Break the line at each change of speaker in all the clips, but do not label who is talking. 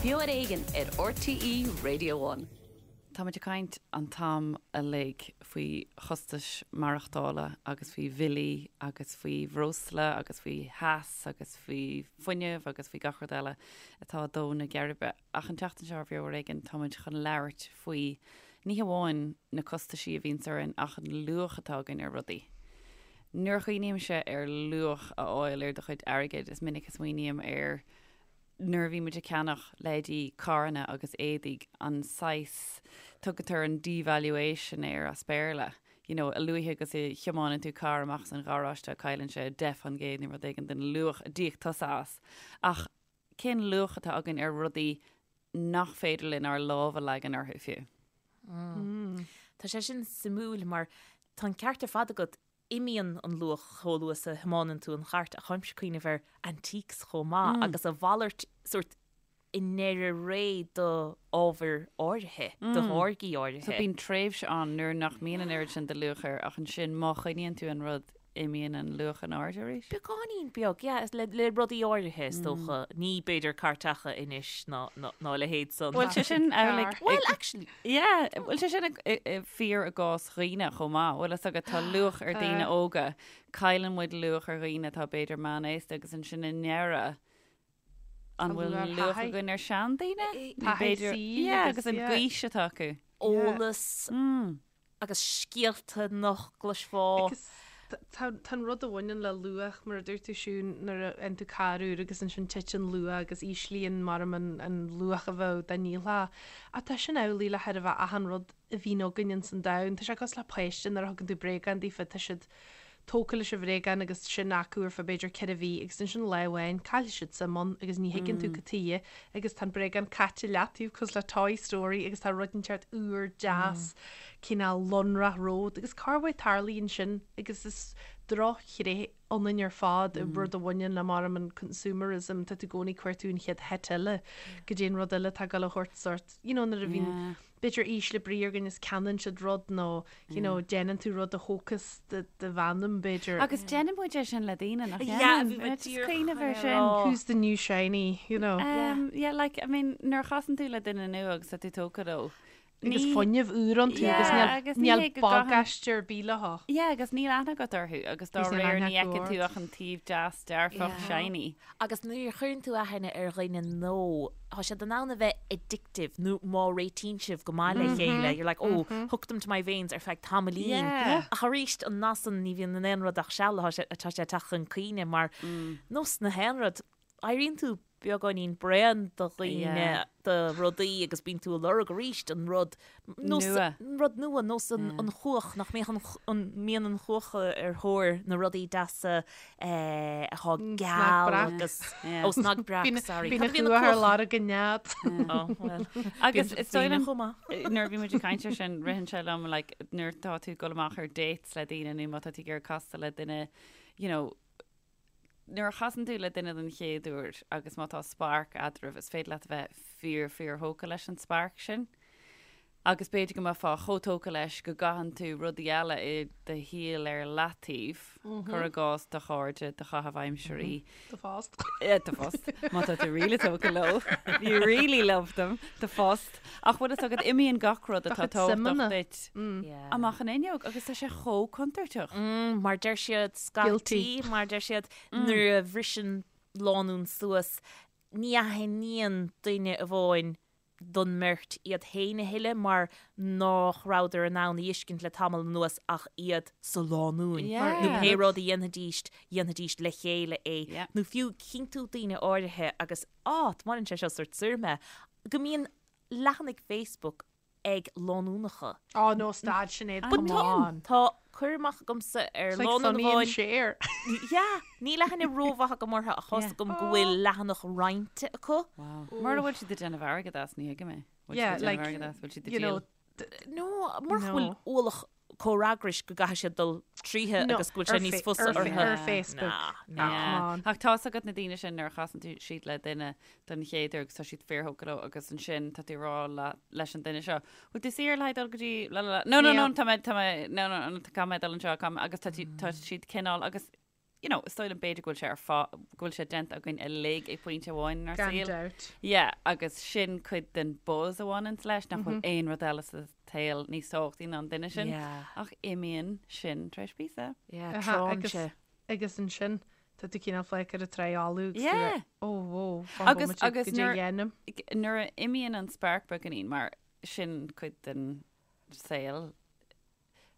Beo ar Éigean ar RTÉ Radio One.
Tá muid ag caint an t-am uilig faoi chostais maireachtála agus faoi bhillí agus faoi bhreosla agus faoi theas agus faoi fuinneamh agus faoi gach rud eile atá ag dó na geirbe. Ach an tseachtain seo ar Bheo ar Éigean tá muid chun labhairt faoi ní hamháin na costaisí a bhíonns orainn ach an luach atá againn ar rudaí. Nuair a chuimhnímse ar luach a fháil ar do chuid airgid is minic a smaoiním ar nuair a bhí muid ag ceannach leithéidí carranna agus éadaigh, an saghas, tugtar an devaluation air as Béarla, you know, a luaithe agus a thiomáineann tú carr amach as an gharáiste cailleann sé 10% nó rud éigin den luach a d'íoc tusa as. Ach cén luach atá againn ar rudaí nach féidir linn ár lámh a leagan orthu fiú?
Tá sé sin suimiúil mar tá an ceart ar fad agat, imíonn an luach chomh luath is a thiomáineann tú an chairt ach táimse ag cuimhneamh ar antiques chomh maith agus a mhalairt sórt i ndeireadh ré do ábhair áirithe, do tháirgí áirithe.
So bíonn tréimhse ann nuair nach mbíonn an oiread sin de luach air ach ansin má choinníonn tú an rud imíonn an luach in airde arís?
Beagáinín beag, yeah, le le rudaí áirithe is dócha. Ní b'fhéidir cairteacha anois ná ná a leithéid san.
Bhfuil sé sin amhlaidh?
Well, actually.
Yeah, bhfuil sé sin fíor i gcás dhaoine chomh maith? Bhfuil fhios agat, tá luach ar daoine óga, cailleann muid luach ar dhaoine atá b'fhéidir meánaosta agus ansin i ndeireadh, an bhfuil luach againn ar seandaoine?
Taithí saoil
Yeah, agus an ghaois atá acu.
Eolas. Agus scéalta nach gcloisfeá.
Agus tá an rud a bhaineann le luach, mar a dúirt tú Siún, nuair a fhaigheann tú carr úr agus ansin titeann luach agus íslíonn maram an luach a bheadh dá ndíolfá. Ach tá sin amhlaidh le chóir a bheith achan rud a bhíonn againn ins an domhan. Tá sé cosúil le páiste nuair a thugann tú bréagán daofa, tá siad tógtha leis an bhréagán agus sin acu ar feadh b'fhéidir 4 mhí agus ansin lá amháin caillfidh siad suim ann agus ní thuigeann tú cad tuighe agus tá an bréagán caite i leataobh cosúil le Toy Story agus tá rud inteacht úr deas cineál lonrach romhat agus corruair tarlaíonn sin agus is drochthréith ionainn ar fad rud a bhaineann le maram an consumerism tá tú i gcónaí ag cuartú an chéad hit eile go dtí an rud eile atá ag dul a thabhairt sort you know nuair a bhíonn b'fhéidir ísle brí ar dhuine is ceannaíonn siad rud nó you know déanann tú rud a thógfas do do mheanam b'fhéidir.
Agus déanann muid é sin le daoine nach
Yeah,
ndéanann?
bhí mé
Just
díreach
cuimhneamh ar
chun é
sin.
rá.
Who's the new shiny, you know?
Um, yeah, like, I mean, nuair a chasann tú le duine nua agus tá tú tógtha leo,
Agus
ní-
fuinneamh úr iontu agus
Yeah,
níl
agus ní
níl
hé go gcaitheann-
bagáiste ar bith leo.
Yeah, agus níl aithne agat orthu agus dá
Agus níl
réir
aithne
ní
acu
fheiceann tú
ort.
ach an taobh deas dearfach
Yeah.
shiny.
Agus nuair a chuireann tú aithne ar dhuine nua, tá siad in ann a bheith addictive nó má réitíonn sibh go maith le chéile, you're like, oh, hooked them to my veins ar feadh tamaillín. Ach arís, an nath san, ní bhíonn in aon rud ach seal, tá sé tá sé ag teacht chun cuimhne mar nós na haon rud, éiríonn tú beagáinín bréan de dhaoine, de rudaí agus bíonn tú ag lorg arís an rud
Nua.
An rud nua, nós an chuach, nach mbeadh an, an mbíonn an chuach ar thóir na rudaí deasa atá geal agus, ó snag breac, sorry.
Bíonn an chuach ar lorg an nead.
Ó, bhuel.
Agus is dóigh liom,
chomh maith.
nuair a bhí muid ag caint ar sin, ritheann sé liom, like, nuair atá tú ag dul amach ar dates le daoine nó má tá tú ag iarraidh castáil le duine, you know, Nuair a chasann tú le duine den chéad uair agus má tá spark eadraibh, is féidir leat a bheith fíor, fíor thógtha leis an spark sin. Agus b'fhéidir go mbeifeá chomh tógtha leis go gcaitheann tú rudaí eile i do shaol ar leataobh, cuir i gcás do chairde, do chaitheamh aimsirí.
Do phost.
Do phost. Má tá tú really tógtha leo. You really love them. Do phost. Ach bhfuil fhios agat, imíonn gach rud atá tábhachtach duit amach an fhuinneog agus tá sé chomh contúirteach.
Mar deir siad scaití, mar deir siad nuair a bhriseann lánúin suas, ní aithníonn duine amháin don mbeirt iad féin a thuilleadh mar nach rabhadar in ann a fheiscint le tamall anuas ach iad sa lánúin. Nó pé rud a dhéanfaidís, dhéanfaidís le chéile é. Nó fiú chíonn tú daoine áirithe agus, á, baineann sé seo sort soir mé, go mbíonn leathanaigh Facebook ag lánúnacha.
Oh no, stad Sinéad, come on.
Tá cur amach agamsa ar
It's like
lánúin
Sonny and
amháin.
Cher.
Yeah, níl aithne rómhaith agam orthu ach tá's agam go bhfuil leathanach roinnte acu.
Wow. Mura bhfuil siad ag déanamh airgead as, ní thuigim é. Bhfuil siad
Yeah,
ag déanamh
like,
airgead as, bhfuil siad ag
you know,
díol?
No, murach go bhfuil
No.
ualach comhfhreagrais go gcaithfidh siad dul tríothu
No,
agus go bhfuil sé
ar
níos
fa-
fusa
ar fa-
orthu.
ar Facebook.
Nah,
Nah,
nah.
come on.
Ach tá's agat na daoine sin nuair a chasann tú siad le duine don chéad uair agus tá siad fíorthógtha leo agus ansin tá tú ag rá le leis an duine seo, bhfuil tú saor le haghaidh dul go dtí la la la no no no
Níl.
tá mé tá mé no no no caithfidh mé dul anseo caithfidh mé agus tá tú tá siad cineál agus. you know, is dóigh liom b'fhéidir go bhfuil sé ar fá, go bhfuil sé déanta againn uilig ag pointe amháin inár
Gan
saol.
dabht.
Yeah, agus sin cuid den buzz a bhaineanns leis, nach bhfuil aon rud eile sa tsaol níos tábhachtaí ná an duine sin.
Yeah.
Ach imíonn sin tar éis píosa.
Yeah,
Aha,
tránn
agus,
sé.
agus ansin, tá tú cineál fágtha ar an trá fholamh agus tú
Yeah.
like, oh, whoa, fan
Agus-
bomaite,
agus
go dtí
nuair-
dhéanaim.
Nuair a imíonn an spark beagáinín, mar sin cuid den saol,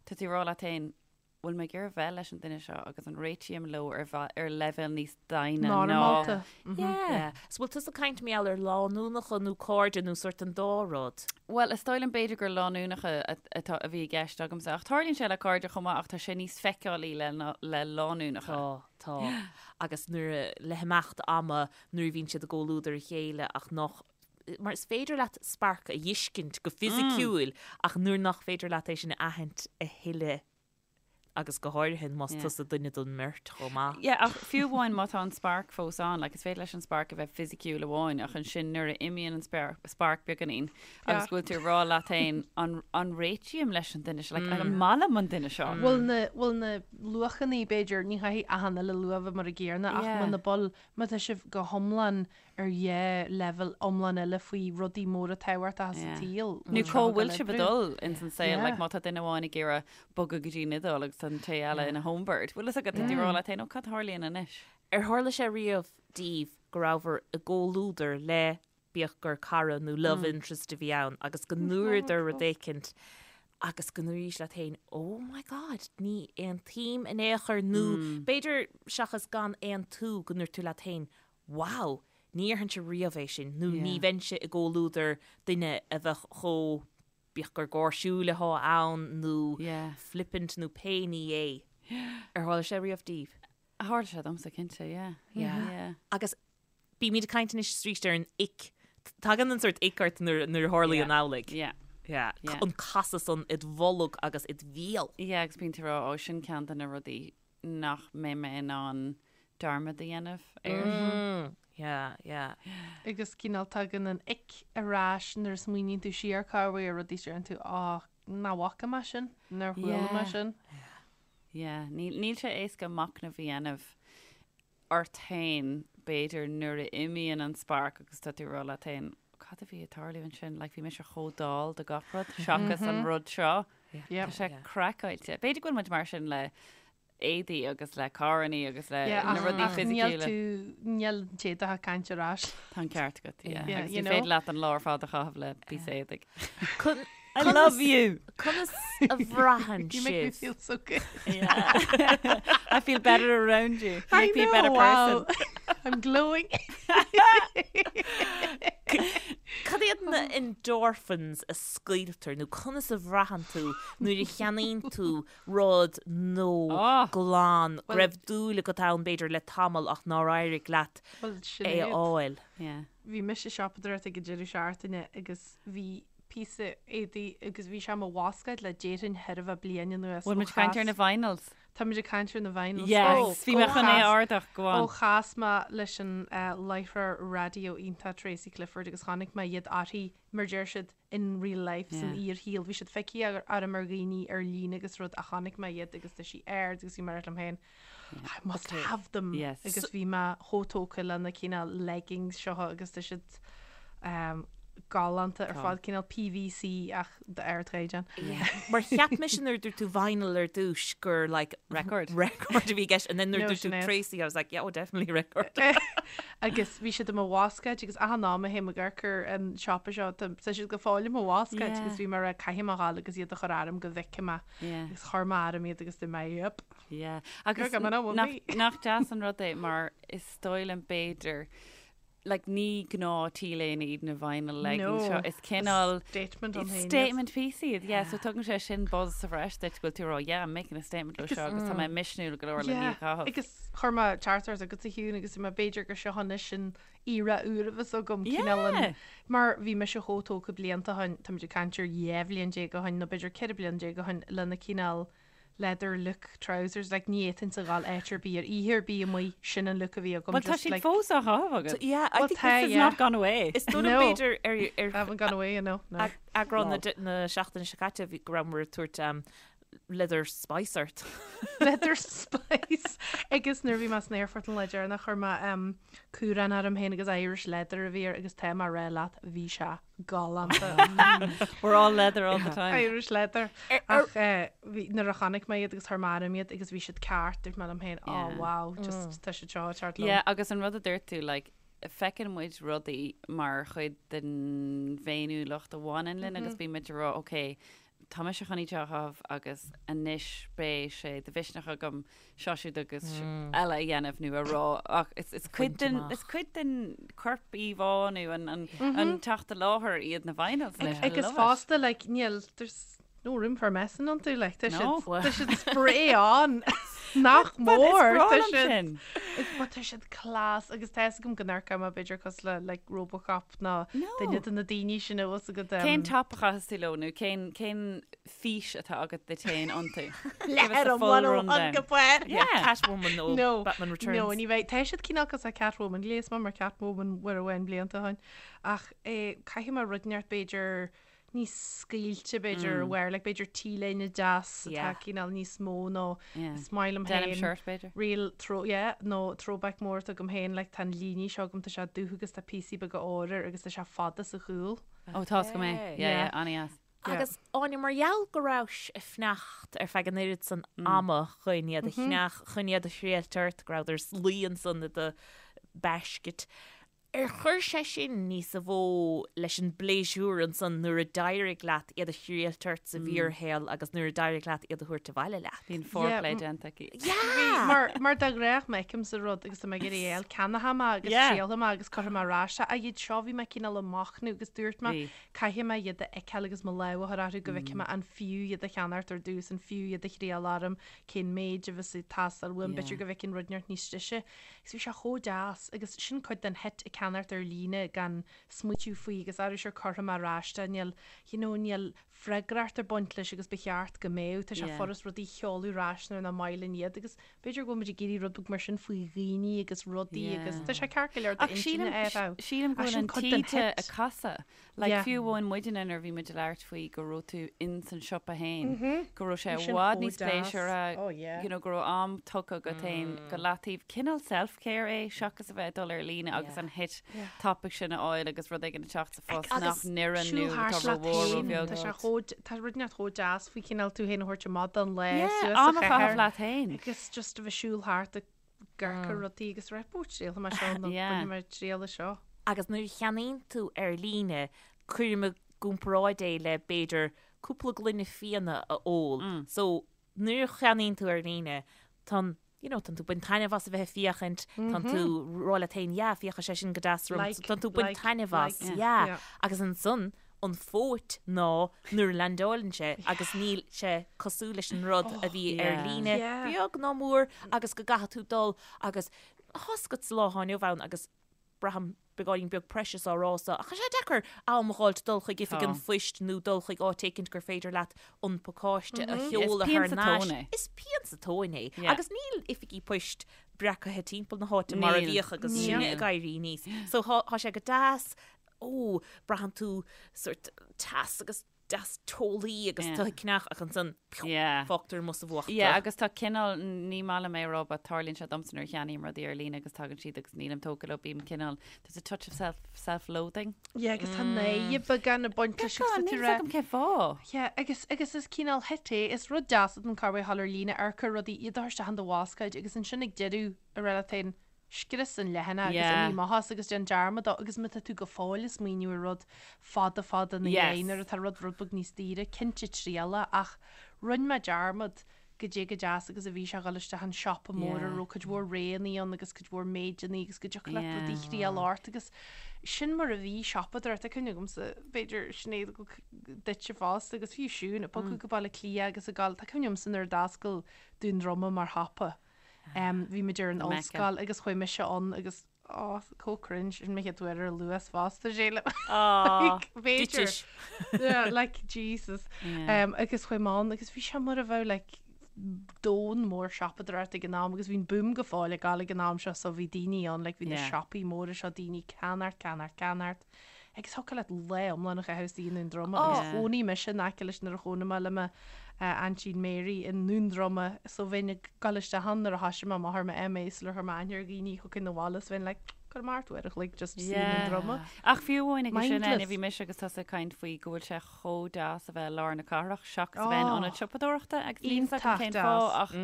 tá tú ag rá leat féin, bhfuil mé ag iarraidh bheith leis an duine seo agus an réitím leo ar ar leibhéal níos doimhne ná
Normálta.
Yeah.
So bhfuil tusa ag caint mar gheall ar lánúnacha nó cairde nó sort an dá rud?
Bhuel, is dóigh liom b'fhéidir gur lánúnacha atá a bhí i gceist agamsa ach tarlaíonn sé le cairde chomh maith ach tá sé níos feiceálaí le le lánúnacha.
Tá, tá. Agus nuair a, le himeacht ama nuair a bhíonn siad i gcomhluadar a chéile ach nach, mar is féidir leat spark a fheiscint go fisiciúil ach nuair nach féidir leat é sin a aithint a thuilleadh agus go háirithe más tusa duine den mbeirt chomh maith.
Yeah, ach fiú amháin má tá an spark fós ann, like is féidir leis an spark a bheith fisiciúil amháin ach ansin nuair a imíonn an spark beagáinín agus go bhfuil tú ag rá leat féin an, an réitím leis an duine seo, like an maith liom an duine seo?
Bhfuil na, bhfuil na luachannaí b'fhéidir, ní chaithfidh achan uile luach a bheith mar an gcéanna ach muna bhfuil, má tá sibh go hiomlán ar dhá leibhéal iomlán eile faoi rudaí móra tábhachtacha sa tsaol.
Nó cá bhfuil sibh ag dul ins an saol, like má tá duine amháin ag iarraidh bogadh go dtí an Iodáil agus tá an té eile ina homebird. Bhfuil fhios agat, tá tú ag rá leat féin, ó cad a tharlaíonn anois?
Ar tharla sé riamh daoibh go rabhabhair i gcomhluadar le, bíodh gur cara nó love interest a bhí ann, agus go ndúradar rud éicint agus go ndúraís leat féin, oh my god, ní aontaím in aon chor nó b'fhéidir seachas gan aontú go ndúirt tú leat féin, wow, ní dhéarfainnse riamh é sin, nó ní bheinnse i gcomhluadar duine a bheadh chomh, bíodh gur gáirsiúil atá ann nó flippant nó pé ní é. Ar tharla sé riamh daoibh?
Tharla sé domsa, cinnte, yeah.
Yeah. Agus bímid ag caint anois arís ar an ick. Tagann an sórt ick ort nuair a tharlaíonn amhlaidh.
Yeah.
Yeah. An casadh san id bholg agus id bhéal.
Yeah, agus bíonn tú ag rá, ó, sin ceann de na rudaí nach mbeidh mé in ann dearmad a dhéanamh air.
Yeah, yeah.
Agus cineál tagann an ick ar ais nuair a smaoiníonn tú siar corruair ar rudaí is deireann tú á, nach bhfaca mé sin, nár chuala mé sin.
Yeah, níl sé éasca machnamh a dhéanamh ort féin, b'fhéidir, nuair a imíonn an spark agus tá tú ag rá leat féin, cad a bhí ag tarlú ansin? Like, bhí mise chomh dall do gach rud seachas an rud seo. Tá sé craiceáilte. B'fhéidir go bhfuil muid mar sin le éadaí agus le carrannaí agus le na rudaí
fisiciúla. Níl tú, níl an t-éadach ag caint ar ais.
Tá an ceart agat, yeah. Agus ní féidir leat an lá ar fad a chaitheamh le píosa éadaigh.
I love you! Conas a bhraitheann
You make me
sibh?
feel so good.
I feel better around you. You
I
make me a
know,
better
wow.
person.
I'm glowing.
Cad iad na endorphins a scaoiltear nó conas a bhraitheann tú nuair a cheannaíonn tú rud nó
Oh.
glan go raibh dúil agat ann b'fhéidir le tamall ach nár éirigh leat
Well,
é a
Sinéad,
fháil?
Yeah.
bhí mise ag siopadóireacht ag an deireadh seachtaine agus bhí píosa éadaí agus bhí sé i mo bhascáid le déarfainn chóir a bheith bliain anuas.
Bhfuil muid ag caint ar na vinyls?
Tá muid ag caint ar na vinyls.
Yes, bhí mé chun é a ardach, go on.
Ó chas mé leis an láithreoir raidió iontach Tracy Clifford agus chonaic mé iad uirthi, mar deir siad, in real life, san fhíorshaol. Bhí siad feicthe orm ar dhaoine ar líne agus rud ach chonaic mé iad agus tá sí ard agus bhí mé ag rá liom féin, I must have them.
Yes.
Agus bhí mé chomh tógtha le na cineál leggings seo agus tá siad galánta ar fad, cineál PVC ach d'ardchaighdeán.
Mar cheap mise nuair a dúirt tú vinyl ar dtús gur like
Record.
record a bhí i gceist and then nuair a
No,
dúirt tú
Sinéad.
Tracy I was like yeah oh definitely record.
Agus bhí siad i mo bhascáid agus achan am a théim ag amharc ar an siopa seo tá siad go fóill i mo bhascáid
Yeah.
agus bhí mé ag rá caithfidh mé a ghabháil agus iad a chur orm go bhfeicfidh mé
Yeah.
agus chuir mé orm iad agus dúirt mé yep.
Yeah. Agus
You're coming home with
nach,
me.
nach deas an rud é mar is dóigh liom b'fhéidir like ní gnáth T-léine iad na vinyl leggings seo.
No.
Is cineál
Statement ann féin iad.
statement piece iad. Yeah, so tugann sé sin buzz sa bhreis duit go bhfuil tú ag rá, yeah, I'm making a statement leo seo agus tá mé misniúil go leor le
Yeah,
iad a chaitheamh.
Agus chuir mé teachtaireacht agat a Shiún agus mé b'fhéidir gur seo anois an era úr a bheas agam cineál an
Yeah.
mar bhí mise chomh tógtha blianta ó shin, táimid ag caint ar 12 bhliain ó shin nó b'fhéidir 14 bliain ó shin lena cineál leather look trousers, like ní fhéadfainnse a ghabháil áit ar bith ar oíche ar bith amuigh, sin an look a bhí agam
Well, tá
just
siad
like
fós á chaitheamh agat.
Yeah, I
Well,
think
tá,
This has
yeah.
not gone away.
Is dóigh liom
No.
b'fhéidir ar ar
haven't gone away, you know, no.
eagrán na na seachtaine seo caite bhí go rabhamar ag tabhairt um, Leather spice ort.
Leather spice! Agus nuair a bhí mé san aerfort an lá deireanach chuir mé cúrán orm féin agus Irish leather a bhí air agus tá mé a rá leat bhí sé galánta.
We're all leather all the time.
Irish leather. Ach bhí nuair a chonaic mé iad agus chuir mé orm iad agus bhí siad ceart dúirt mé liom féin oh wow just tá siad seo ag teacht liom.
Yeah agus an rud a dúirt tú like feiceann muid rudaí mar chuid den bhféiniúlacht a bhaineann linn agus bíonn muid ag rá ok tá mise chun iad seo a chaitheamh agus anois beidh sé de mhisneach agam seo siúd agus eile a dhéanamh nó a rá ach is, is cuid den, is cuid den corp íomhá nó an, an, an teacht i láthair iad na vinyls anois. I
Agus
love it.
fosta, like, níl, there's no room for messing iontu, like, tá
No.
siad, tá siad spray on nach
But is
mór,
breá
tá
liom
siad,
sin.
is, but tá siad class agus tá fhios agam go n-amharcfaidh mé b'fhéidir cosúil le, like, Robocop nó
No.
duine de na daoine sin a bhfuil fhios agat.
Cén top a chaitheas tú leo nó cén, cén fís atá agat duit féin iontu? Give us
Leather
the
an
full
101
rundown.
go bhfuair.
Yeah.
Catwoman nó
No,
Batman Returns.
No, ní bheidh. Tá siad cineál cosúil le Catwoman, ghléas mé mar Catwoman uair amháin blianta ó shin. Ach eh, caithfidh mé rud inteacht b'fhéidir níos scaoilte b'fhéidir wear, like b'fhéidir T-léine deas atá
Yeah.
cineál níos mó nó
Yeah.
is maith liom
Denim
féin.
shirt b'fhéidir.
Real throw, yeah, nó throwback mór atá agam féin, like tá an líne seo agam, tá sé dubh agus tá píosaí beaga óir air agus tá sé fada sa chúl.
Ó tá go mé. Yeah,
Yeah.
yeah, an-dheas.
Yeah.
Agus Áine, mar gheall go rabhais ag fanacht ar feadh an oiread san ama chun iad a cheannach, chun iad a thriailt ort, go rabhadar luí ansan i do basket, Ar chuir sé sin níosa mhó leis an bpléisiúr ansan nuair a d'éirigh leat iad a thriailt ort sa bhfíorshaol agus nuair a d'éirigh leat iad a thabhairt abhaile leat?
Bhí an foreplay
Yeah,
déanta aici.
Yeah!
Mar, mar de ghnáth má fheicimse rud agus tá mé ag iarraidh é a fháil, ceannóidh mé agus
Yeah.
triailfidh mé agus cuirfidh mé ar ais é. Ach iad seo bhí mé cineál ag machnamh agus dúirt mé
Bhí.
caithfidh mé iad a fheiceáil agus mo lámh a chur orthu go bhfeicfidh mé an fiú iad a cheannacht ar dtús, an fiú iad a thriail orm, cén méid a bheas ag teastáil uaim,
Yeah.
b'fhéidir go bhfeicfinn rud inteacht níos deise. Agus bhí sé chomh deas agus sin cuid den hit ag ceannacht ar líne gan smaoitiú faoi agus arú sure cuirfidh mé ar ais é, níl, you know, níl freagracht ag baint leis agus ba cheart go mbeadh, tá sé
Yeah.
furast rudaí a sheoladh ar ais nuair nach maith linn iad agus b'fhéidir go bhfuil muid ag iarraidh rud beag mar sin faoi dhaoine agus rudaí
Yeah.
agus tá sé ceart go leor
Ach
d'intinne
sílim,
a bheith.
sílim go
Ach
bhfuil
sin
an
cuid den
taoide
hit.
ag casadh. Like
Yeah.
fiú amháin muidne nuair a bhí muid ag labhairt faoi go raibh tú in san siopa féin, go raibh sé
Bhí
i
sin
bhfad
chomh
níos
deas.
pléisiúrtha,
Oh, yeah.
you know, go raibh am tugtha agat féin go leataobh. Cineál self-care é seachas a bheith ag dul ar líne agus an hit tapaidh sin a fháil agus rud éigin ag teacht sa phost nach
Agus
n-oireann nó
Siúl thart
atá
leat
rómhór
féin,
róbheag.
tá sé chomh, tá rud inteacht chomh deas faoi cineál tú féin a thabhairt amach don lá
Yeah,
suas
am
sa
a chaitheamh
chathair
leat féin.
agus just a bheith siúl thart ag amharc ar rudaí agus rá ó triailfidh mé seo nó
Yeah.
bainfidh mé triail as seo.
Agus nuair a cheannaíonn tú ar líne, cuirim i gcomparáid é le b'fhéidir cúpla gloine fíona a ól. So nuair a cheannaíonn tú ar líne, tá an, you know, tánn tú ag baint taitneamh as a bheith ag féachaint, tánn tú ag rá leat féin, yeah, féachfaidh sé sin go deas orm,
Like,
so tánn tú ag baint
like,
taitneamh as,
like.
yeah.
Yeah.
Agus ansan, an phóit ná nuair a leaindeálann sé agus níl sé cosúil leis an rud a bhí ar
yeah.
líne,
Yeah.
beag ná mór, agus go gcaithfidh tú dul agus tá a fhios agat sa lá atá inniu ann agus braithim beagáinín beag precious á rá so, ach tá sé deacair am a dh'fháilt dul chuig oifig an
Tá.
phoist nó dul chuig áit éicint gur féidir leat an pacáiste a sheoladh
Is
thar
pian sa
n-ais.
tóin é.
Is pian sa tóin é.
Yeah.
Agus níl oifigí poist breacaithe timpeall na háite mar a
Níl.
bhíodh agus sinne
Níl.
ag éirí aníos. So thá thá sé go deas, ó, braitheann tú sórt teas agus deas teolaí agus
Yeah.
tú ag ceannach ach ansan piú,
Yeah.
fágtar amuigh sa bhfuacht
Yeah,
tú.
agus tá cineál, ní maith liom é a rá, but tarlaíonn sé domsa nuair a cheannaím rudaí ar líne agus tagann siad agus nílim tógtha leo, bím cineál, there's a touch of self, self-loathing.
Yeah, agus tá náire beagán ag baint leis agus
Beagán,
tá tú
níl
rá.
's agam cén fáth.
Yeah, agus, agus is cineál hit é, is rud deas an carr thall ar líne amharc ar rudaí iad a chur isteach in do bhascáid agus ansin ag deireadh ag rá leat féin, Scrios an leathanach agus
Yeah.
imigh amach as agus déan dearmad dó agus má tá tú go fóill ag smaoineamh ar rud fada fada ina
Yes.
dhiaidh nuair atá rud rud beag níos daoire, cinnte triail é ach rinne mé dearmad goidé chomh deas agus a bhí sé a dhul isteach an siopa mór a
Yeah.
raibh cuid mhór roghannaí ann agus cuid mhór méideannaí agus go dtiocfadh leat rudaí
Yeah.
thriail ort agus sin mar a bhí siopadóireacht. Tá cuimhne agamsa, b'fhéidir Sinéad duitse fosta agus fiú Siún, ag bogadh go Baile Átha Cliath agus ag gabháil, tá cuimhne agamsa nuair a d'oscail Dún Droma mar shiopa. Bhí muid ar an
Mecca.
ollscoil agus chuaigh mise ann agus oh, chomh cringe sin mo chéad uair ar Luas fosta sílim.
Ah,
Like, b'fhéidir.
duitis.
Yeah, like Jesus.
Yeah.
Um, agus chuaigh mé ann agus bhí sé mar a bheadh like domhan mór siopadóireachta ag an am agus bhí an boom go fóill ag gabháil ag an am seo so bhí daoine ann like bhí na
Yeah.
siopaí móra seo daoine ceannacht ceannacht ceannacht. Agus thiocfadh leat lá iomlán a chaitheamh istigh i nDún Droma agus
Yeah.
chónaigh mise in aice leis nuair a chónaigh mé le mo aintín Mary i nDún Droma so bheinn ag dul isteach ann nuair a thoisigh mé amach ar mo MA sular chuir mé aithne ar dhaoine thiocfainn abhaile is bheinn like gabh amach uair a chloig just suí i nDún Droma.
Ach fiú amháin agus sin
Mindless.
Áine, bhí mise agus tusa ag caint faoi go bhfuil sé chomh deas a bheith i lár na cathrach seachas a bheith in
Oh.
ionad siopadóireachta agus níl 'fhios agam
Iontach
cén
deas.
fáth ach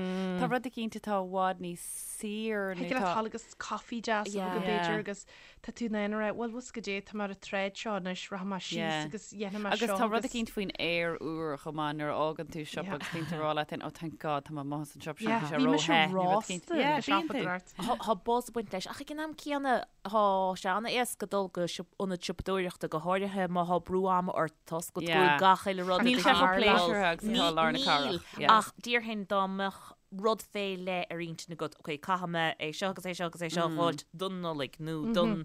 tá rud eicínt atá i bhfad níos saor nó
Thig leat
tá
dul agus coffee deas a
Yeah.
bheith b'fhéidir
Yeah.
agus Tá tú in ann a rá, bhuel, bhfuil 'fhios agat goidé, tá mé ar an tsráid seo anois, rachaidh mé síos
Yeah.
agus dhéanfaidh mé
Agus
seo
tá rud
agus-
eicínt faoin aer úr chomh maith nuair a fhágann tú siopa
Yeah.
agus bíonn tú ag rá leat féin, oh thank God tá mé amuigh as an siopa sin,
Yeah,
bhí sé
bhí mise
ró-the, nó rud eicínt.
rósta
Yeah,
ag
bíonn tú.
siopadóireacht.
Tá tá buzz ag baint leis, ach ag an am céanna tá sé an-éasca dul go siop- ionad siopadóireachta go háirithe má tá brú ama ort toisc go
Yeah.
bhfuil gach uile rud
Níl
ag
sé chomh
tarlú.
pléisiúrtha agus atá lár na
Níl,
cathrach. Yeah.
ach déarfainn dá mbeadh rud fé leith ar intinn agat, ok, caithfidh mé é seo agus é seo agus é seo a dh'fháilt don Nollaig nó don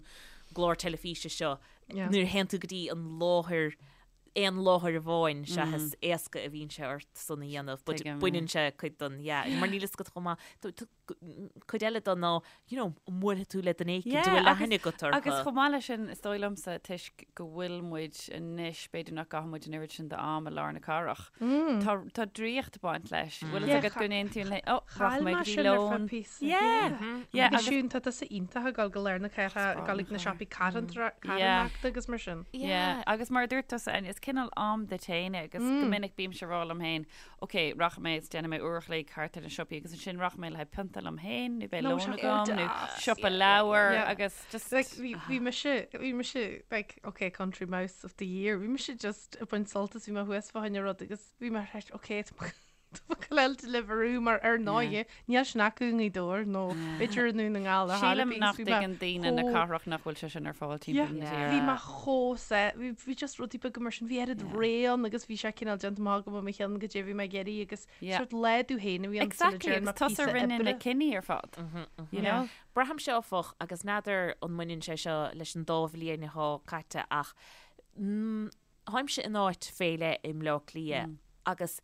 gclár teilifíse seo, nuair a théann tú go dtí an láthair, aon láthair amháin, sea is éasca a bhíonn sé ort san a dhéanamh, but baineann sé cuid den, yeah, mar níl fhios agat chomh maith, cuid eile de ná, you know, an mbuailfidh tú le duine éicint a bhfuil aithne agat orthu.
Agus chomh maith leis sin, is dóigh liomsa, toisc go bhfuil muid anois, b'fhéidir nach gcaitheann muid an oiread sin d'am i lár na cathrach, tá, tá draíocht ag baint leis. Bhfuil fhios agat go n-aontaíonn le, oh,
Chaill
rachaidh mé
mé
go dtí
sin ar feadh
lón.
píosa.
Yeah, yeah,
Agus
agus
Siún, tá tusa iontach ag dul go lár na cathrach, ag dul ag na siopaí carthanachta agus mar sin.
Yeah, agus mar a dúirt tusa, Áine, is cineál am duit féin é agus go minic bímse ag rá liom féin, ok, rachaidh mé is déanfaidh mé uair a chloig thart ar na siopaí agus ansin rachaidh mé le haghaidh pionta liom féin nó beidh lón agam nó siopa leabhar agus just.
Like, bhí, bhí mise, bhí mise, like, ok, country mouse of the year, bhí mise just ag baint sult as, bhí mé thuas fá choinne rud agus bhí mé ar ok, tá mé tá mé ag goil Deliveroo mar ar ndóighe, níl sin acu i nGaoth Dobhair nó b'fhéidir i nDún na nGall ar
Sílim
bith,
nach
bhí mé
dtuigeann daoine na
chomh-
cathrach nach bhfuil sé sin ar fáil
Yeah,
timpeall na tíre.
bhí mé chomh sa, bhí, bhí just rudaí beaga mar sin, bhí oiread rogha ann agus bhí sé cineál déanta amach agam i mo cheann goidé bhí mé ag iarraidh agus
Yeah.
sort lá duit féin a bhí ann sula
Exactly,
dtearn
agus
mé
tusa
píosa
a rinne na
oibre.
cinní ar fad, you know?
Braithimse áfach, agus n'fheadar an mbaineann sé seo leis an dá bhliain atá caite ach mm, táimse in áit fé leith i mBleá Cliath agus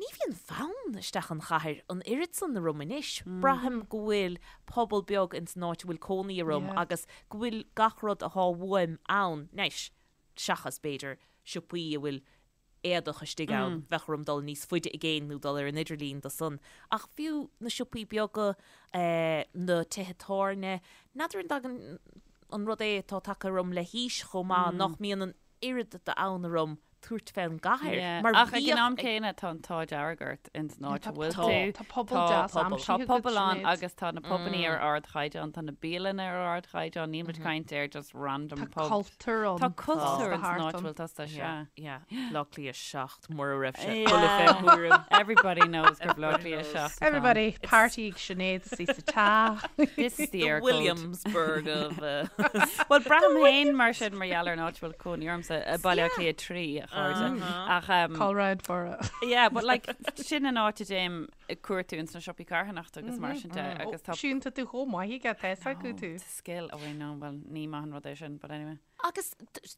Ní bhíonn fonn isteach an chathair an oiread san orm anois. Braithim go bhfuil pobal beag ins an áit a bhfuil cónaí orm agus go bhfuil gach rud athá uaim ann, anois, seachas, b'fhéidir, siopaí a bhfuil éadach istigh ann, bheadh orm dul níos faide i gcéin nó dul ar an idirlíon do san. Ach fiú na siopaí beaga, na tithe tábhairne, n'fheadar an dtagann an rud é atá tagtha orm le haois chomh maith, nach mbíonn an oiread d'fhonn orm tabhairt fén gcathair
mar Ach ag an am céanna tá an t-ádh dearg ort ins an áit a bhfuil tú.
Tá pobal deas aimsithe
Tá pobal ann agus tá na pubannaí ar ardchaighdeán, tá na bialanna ar ardchaighdeán, níl muid ag caint ar just random
Tá
pub.
cultúr ann.
Tá cultúr ins an áit a bhfuil tusa, sea.
Yeah, Bleá Cliath 7 mura raibh sé buille fé thuairim.
Everybody knows gur Bleá Cliath 7 atá ann.
Everybody, party ag Sinéad is í sa teach.
This is the
The
Eircode.
Williamsburg of
Bhuel, braithim féin mar sin mar gheall ar an áit a bhfuil cónaí ormsa, Baile Átha Cliath 3, a chairde. Ach, um,
Call round for it.
yeah, but like, sin an áit a dtéim ag cuartú ins na siopaí carthanachta agus mar sin de, agus tá
Siún, tá tú chomh maith aige, tá fhios acu tú.
It's a skill, oh I know, well, ní maith an rud é sin, but anyway.
Agus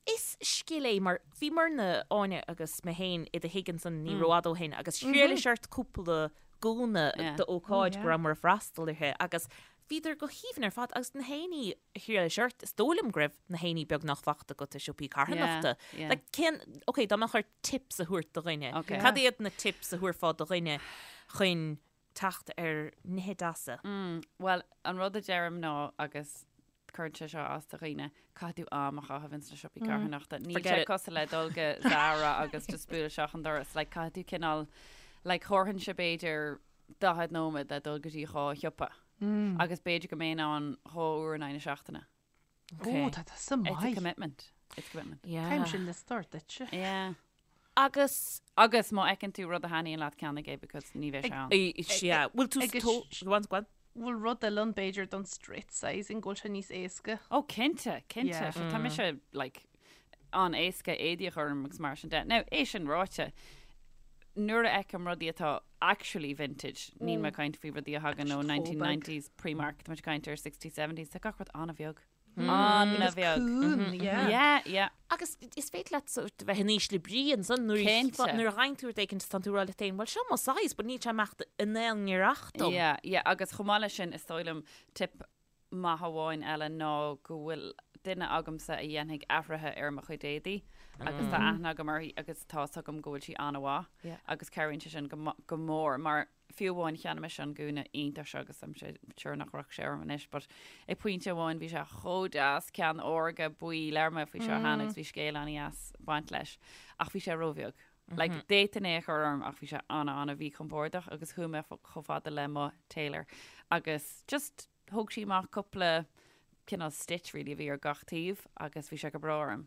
is scil é mar bhíomarna, Áine agus mé féin i do thigh ansan ní rófhada ó shin agus thriailis ort cúpla gúna d'ócáid go rabhamar ag freastal uirthi agus Bhíodar go haoibhinn ar fad agus na héinní a thriailis ort, is dóigh liom go raibh na héinní beagnach fachta agat i siopaí carthanachta.
Yeah, yeah.
Like, cén, ok, dá mbeadh ort tips a thabhairt do dhuine,
Ok.
cad iad na tips a thabharfá do dhuine chun teacht ar nithe deasa?
Mm, bhuel, an rud a deirim ná, agus cuireann sé seo as do dhaoine, caithfidh tú am a chaitheamh ins na siopaí carthanachta. Níl
Forget
sé
it.
cosúil le dul go Zara agus just bualadh isteach an doras. Like, caithfidh tú cineál, like, thabharfainnse b'fhéidir 40 nóiméad le dul go dtí dhá shiopa. Agus b'fhéidir go mbeinn ann dhá uair in aghaidh na seachtaine.
Ó, tá tusa
It's a
maith.
commitment. It's a commitment.
Yeah.
Caithfimse liosta ort duitse.
Yeah.
Agus
Agus má fheiceann tú rud a thaitníonn leat ceannaigh é because ní bheidh sé ann.
yeah, bhfuil tú
Agus
tó- Go on, go on.
Bhfuil rud eile ann b'fhéidir don straight sizing go bhfuil sé níos éasca.
Ó cinnte, cinnte.
Yeah.
So tá mise like an-éasca éadaí a chur orm agus mar sin de. Now, é sin ráite, nuair a fheicim rudaí atá actually vintage, níl mé ag caint faoi rudaí a thagann ó 1990s Primark, tá muid ag caint ar 60s, 70s, tá gach rud an-bheag. An-bheag.
Cúng, yeah.
Yeah, yeah.
Agus is féidir leat sort of bheith in ísle brí ansan nuair
Cinnte.
nuair a fhaigheann tú rud éicint is tá tú ag rá leat féin, bhuel seo mo size, but níl sé ag imeacht in aon ngiorracht dom.
Yeah, yeah, agus chomh maith leis sin, is dóigh liom tip maith amháin eile ná go bhfuil. duine agamsa a dhéanfaidh athruithe ar mo chuid éadaí agus tá aithne agam uirthi agus tá 'fhios agam go bhfuil sí an-mhaith agus cabhraíonn sé sin go mór mar fiú amháin cheannaigh mise an gúna iontach seo agus I'm sure nach raibh sé orm anois but ag pointe amháin bhí sé chomh deas ceann órga buí labhair mé faoi seo cheana agus bhí scéal an-dheas ag baint leis ach bhí sé róbheag. Like d'fhéadfainn é a chur orm ach bhí sé an-an-mhíchompordach agus chuaigh mé chomh fada le mo tailor agus just thóg sí amach cúpla cineál stitch really a bhí ar gach taobh agus bhí sé go breá orm.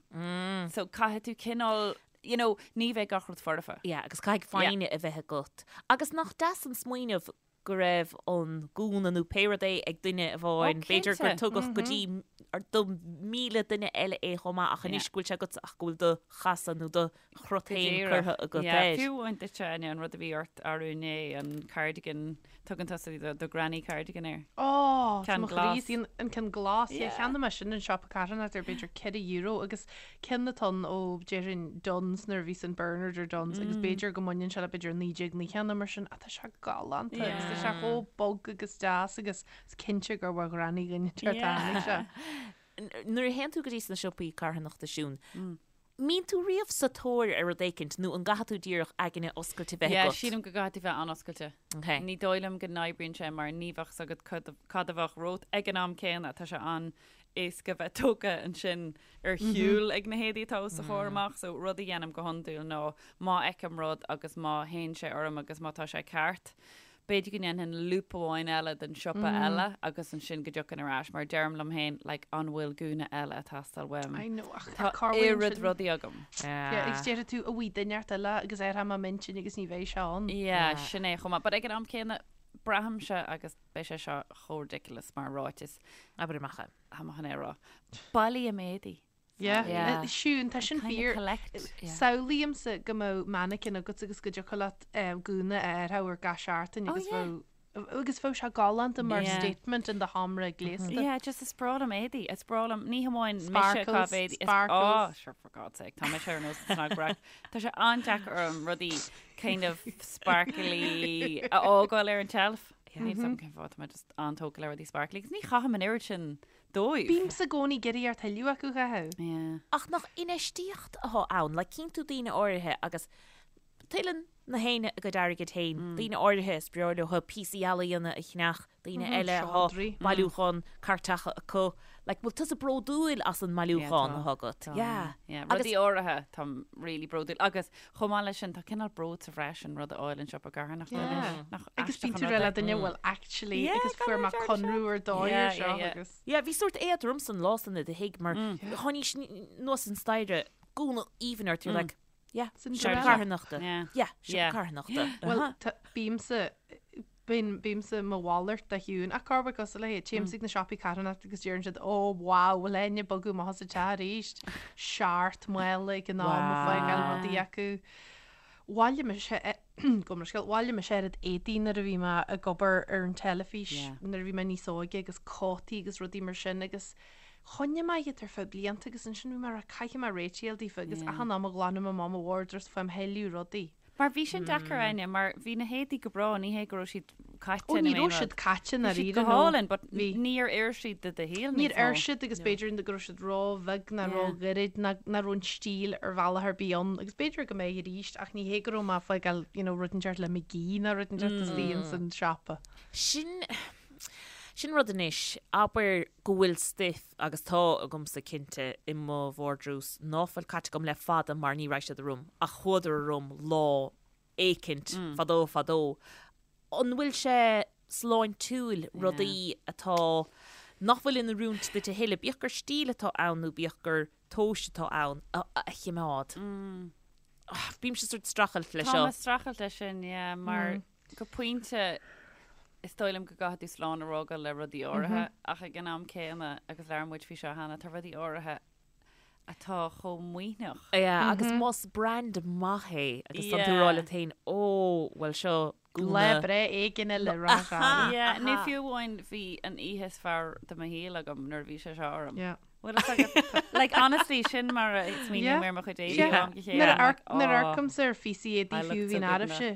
So caithfidh tú cineál, you know, ní bheidh gach rud foirfe.
Yeah, agus caithfidh foighne a bheith agat. Agus nach deas an smaoineamh go raibh an gúna nó pé rud é ag duine amháin, b'fhéidir gur tugadh go dtí do 1,000 duine eile é chomh maith ach anois go bhfuil sé agat ach go bhfuil do chasadh nó do chrot féin curtha agat air.
Fiú amháin duitse, Áine, an rud a bhí ort arú inné, an cardigan, tugann tusa do granny cardigan air.
Ó, tá mo chroí istigh, an ceann glas, yeah, cheannaigh mé sin in siopa carthanachta ar b'fhéidir €4 agus ceann atá ann ó déarfainn Dunnes nuair a bhí san Bernard or Dunnes agus b'fhéidir go mbaineann sé le b'fhéidir 1990 nó mar sin ach tá sé galánta agus tá sé chomh bog agus deas agus is cinnte gur ó ghranny dhuine inteacht a tháinig sé.
Nuair a théann tú go dtí sna siopaí carthanachta Siún, mbíonn tú riamh sa tóir ar rud éicint nó an gcaithfidh tú díreach aigne oscailte bheith
agat? Yeah, sílim go gcaithfidh tú bheith an-oscailte. Okay. Ní dóigh liom go n-oibríonn sé mar ní bheadh 's agat cad a bheadh romhat ag an am céanna. Tá sé an-éasca bheith tógtha ansin ar shiúl ag na héadaí atá os do chomhair amach. So rud a dhéanaim go hiondúil ná má fheicim rud agus má théann sé orm agus má tá sé ceart, b'fhéidir go ndéanfainn loop amháin eile den siopa eile agus ansin go dtiocfainn ar ais mar deirim liom féin like an bhfuil gúna eile ag teastáil uaim?
I know ach
Tá
cá bhfuil
oiread
sin?
rudaí agam.
Yeah, agus déarfaidh tú an bhfuil duine inteacht eile agus athróidh mé m'intinn agus ní bheidh sé ann.
Yeah, sin é chomh maith. But ag an am céanna braithimse agus beidh sé seo chomh ridiculous mar ráiteas.
Abair amach é.
Tá mé chun é a rá. Bailím éadaí.
Yeah.
Yeah.
Siún, tá sin
Kind of
fíor.
collect.
Yeah.
Samhlaímse go mbeadh mannequin agat agus go dtiocfadh leat eh, gúna a athrú ar gach seachtain
Oh,
agus
yeah.
bheadh agus bheadh sé galánta mar
Yeah.
statement in do sheomra gléasta.
Yeah, just is breá liom éadaí. Is breá liom, ní hamháin mise
Sparkles,
ag caitheamh éadaí. Is-
sparkles.
Oh, sure, for God's sake, tá mise ar nós an cnagbreac. Tá sé an-deacair orm rudaí kind of sparkly a fhágáil ar an tseilf. Níl 's agam cén fáth, tá mé just an-tógtha le rudaí sparkly. Agus ní chaithim an oiread sin dóibh.
Bímse i gcónaí ag iarraidh tuilleadh acu a chaitheamh.
Yeah.
Ach nach infheistíocht atá ann, like cíonn tú daoine áirithe agus tuilleann na héinne a gcuid airgid féin, daoine áirithe is breá leo píosaí ealaíona a cheannach, daoine eile atá
seodra.
bailiúchán cairteacha acu. Like, bhfuil tusa bródúil as an mbailiúchán
Yeah,
atá agat?
Tá,
Yeah.
yeah.
Agus
Rudaí áirithe, táim really bródúil. Agus chomh maith leis sin, tá cineál bród sa bhreis an rud a fháil in siopa carthanachta
Yeah.
anois. Nach
Agus
aisteach
bíonn
an
tú
rud
rá le
é?
duine bhfuil actually
Yeah,
agus
gan
fuair mé
an dearna
conradh ar dóigh
Yeah,
ar seo
yeah, yeah.
agus.
Yeah, bhí sórt éadrom san lá san i do thigh mar tháinís anuas an staighre, gúna aoibhinn ort, you're like, yeah,
Cinderella.
siopa carthanachta.
Yeah.
Yeah, siopa
Yeah.
carthanachta.
Bhuel, tá- bímse bíonn bímse mo mhalairt de Shiún ach cá bhfuil cosúil léi, téimse ag na siopaí carthanachta agus deireann siad ó wow, bhfuil éinne ag bogadh amach as an teach arís? Seacht mála ag an am ag fágáil rudaí acu. Bhailigh mise gabh mo leithscéal, bhailigh mise oiread éadaí nuair a bhí mé ag obair ar an teilifís
Yeah.
nuair a bhí mé níos óige agus cótaí agus rudaí mar sin agus choinnigh mé iad ar feadh blianta agus ansin bhí mé ag rá caithfidh mé réiteach a fháil daofa agus
Yeah.
achan am a ghlanaim amach mo wardrobe faighim thuilleadh rudaí.
Mar bhí sin deacair, Áine, mar bhí na héadaí go breá, ní hé go raibh siad caite
Ó
nó
ní
aon
raibh
rud.
siad caite
Bhí siad
ndáiríre
go
nó
hálainn, but
bhí.
níor oir siad do do shaol
Níor
níos mó.
oir siad agus b'fhéidir go raibh siad ró-bheag ná
Yeah.
ró-ghairid ná nach raibh an stíl ar bhealach ar bith ann agus b'fhéidir go mbeidh arís ach ní hé go raibh mé ag fágáil you know, rud inteacht le McGee ná rud inteacht istigh ins an siopa.
Sin, sin rud anois, abair go bhfuil stuif agus tá agamsa cinnte i mo vardrús ná fuil caite agam le fada mar ní raibh siad orm ach chuadar orm lá éicint fadó fadó. An bhfuil sé sláintiúil rudaí atá, nach bhfuil in oiriúint duit a thuilleadh, bíodh gur stíl atá ann nó bíodh gur tomhais atá ann, a chimeád? Bímse sort streachailt le
Tá
seo.
mé ag streachailt leis sin, yeah, mar go pointe is dóigh liom go gcaithfidh tú slán a fhágáil le rudaí áirithe ach ag an am céanna, agus labhair muid faoi seo cheana, tá rudaí áirithe atá chomh maoithneach.
Yeah, agus más brand maith é agus tá tú ag rá leat féin, ó, bhuel seo
Lá
gúna.
breithe éigin eile rá
Aha! Yeah, nó fiú amháin bhí an oíche is fearr de mo shaol agam nuair a bhí sé seo orm.
Yeah.
Bhfuil fhios agat? Like, honestly, sin mar a smaoiním ar mo chuid éadaí ó am go chéile.
Nuair a
I'm like,
amharc- nuair a
"Aw."
amharcaimse ar phíosaí éadaí
I
fiú
looked so
bhíonn
good in
araibhse,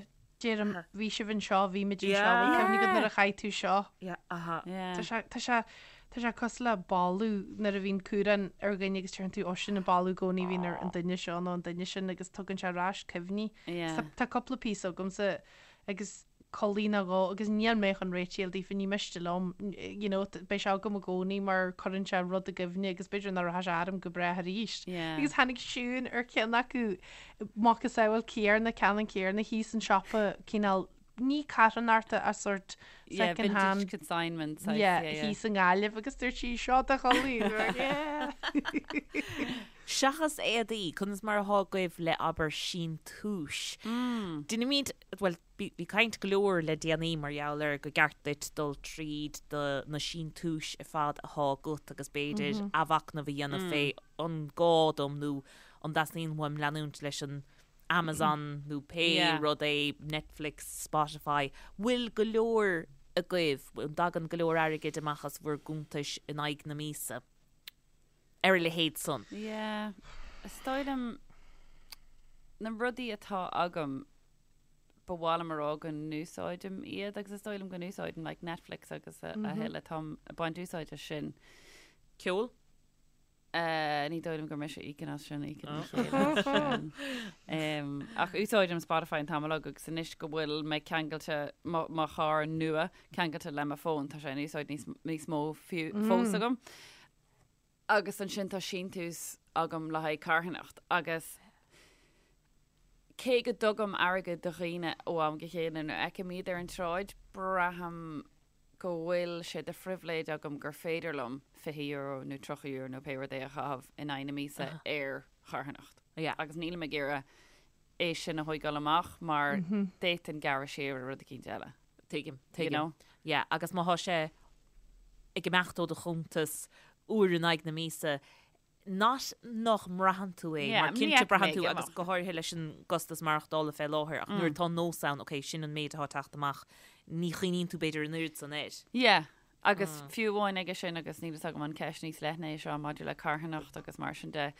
deirim, bhí sibh anseo, bhí muid anseo,
Yeah.
bhfuil cuimhne agat nuair a chaith tú seo?
Yeah, aha.
Yeah.
Tá sé, tá sé, Tá sé cosúil le boladh nuair a bhíonn cumhrán ar dhuine agus deireann tú, ó sin an boladh i gcónaí a bhíonn ar an duine seo nó an duine sin agus tugann sé ar ais cuimhní.
Yeah.
Tá cúpla píosa agamsa agus culaith nó dhó agus níl mé chun réitigh a fháil daofa, ní miste liom, you know, beidh sé agam i gcónaí mar cuireann sé rud i gcuimhne agus b'fhéidir nach rachaidh sé orm go brách arís.
Yeah.
Agus tháinig Siún ar cheann acu, macasamhail céarna, ceannann céarna thíos an siopa cineál ní carthanachta ach sort
Yeah,
second
vintage
hand
consignment saghas,
yeah,
yeah, yeah.
thíos i nGaillimh agus dúirt sí seo do chulaith. Yeah.
Seachas éadaí, conas mar atá agaibh le abair síntiúis? Déanaimid, bhuel, bhí bhí caint go leor le déanaí mar gheall ar go gceart duit dul tríd do na síntiúis ar fad atá agat agus b'fhéidir athmhachnamh a dhéanamh fé an gá dom nó an dteastaíonn uaim leanúint leis an Amazon nó pé rud é, Netflix, Spotify, bhfuil go leor agaibh, an dtagann go leor airgid amach as bhur gcuntais in aghaidh na míosa ar a leithéid san?
Yeah, is dóigh liom na rudaí atá agam, ba mhaith liom a rá go n-úsáidim iad agus is dóigh liom go n-úsáidim like Netflix agus a thuilleadh, táim ag baint úsáid as sin.
Ceol?
Ní dóigh liom gur mise a íocann as sin, íocann mo chéile as sin. Ach úsáidim Spotify an t-am uilig agus anois go bhfuil mé ceangailte, mo charr nua ceangailte le mo fón, tá sé in úsáid níos, níos mó fiú, fós agam. Agus ansin tá síntiús agam le haghaidh carthanacht agus cé go dtugaim airgead do dhaoine ó am go chéile nuair a fheicim iad ar an tsráid, braithim go bhfuil sé de phribhléid agam gur féidir liom €20 nó €30 nó pé rud é a chaitheamh in aghaidh na míosa ar charthanacht. Agus nílim ag iarraidh é sin a thóigeáil amach mar d'fhéadfainn gearradh siar ar rud eicínt eile.
Tuigim, tuigim. You know? Yeah, agus má thá sé ag imeacht ó do chuntas uair in aghaidh na míosa, not nach mbraitheann tú é, mar cinnte braitheann tú agus go háirithe leis an gcostas maireachtála fé láthair, ach nuair atá nós ann, ok, sin an méid atá ag teacht amach, ní chuimhníonn tú b'fhéidir an oiread san air.
Yeah, agus fiú amháin aige sin, agus níl fhios agam an ceist níos leithne é seo maidir le carthanacht agus mar sin de,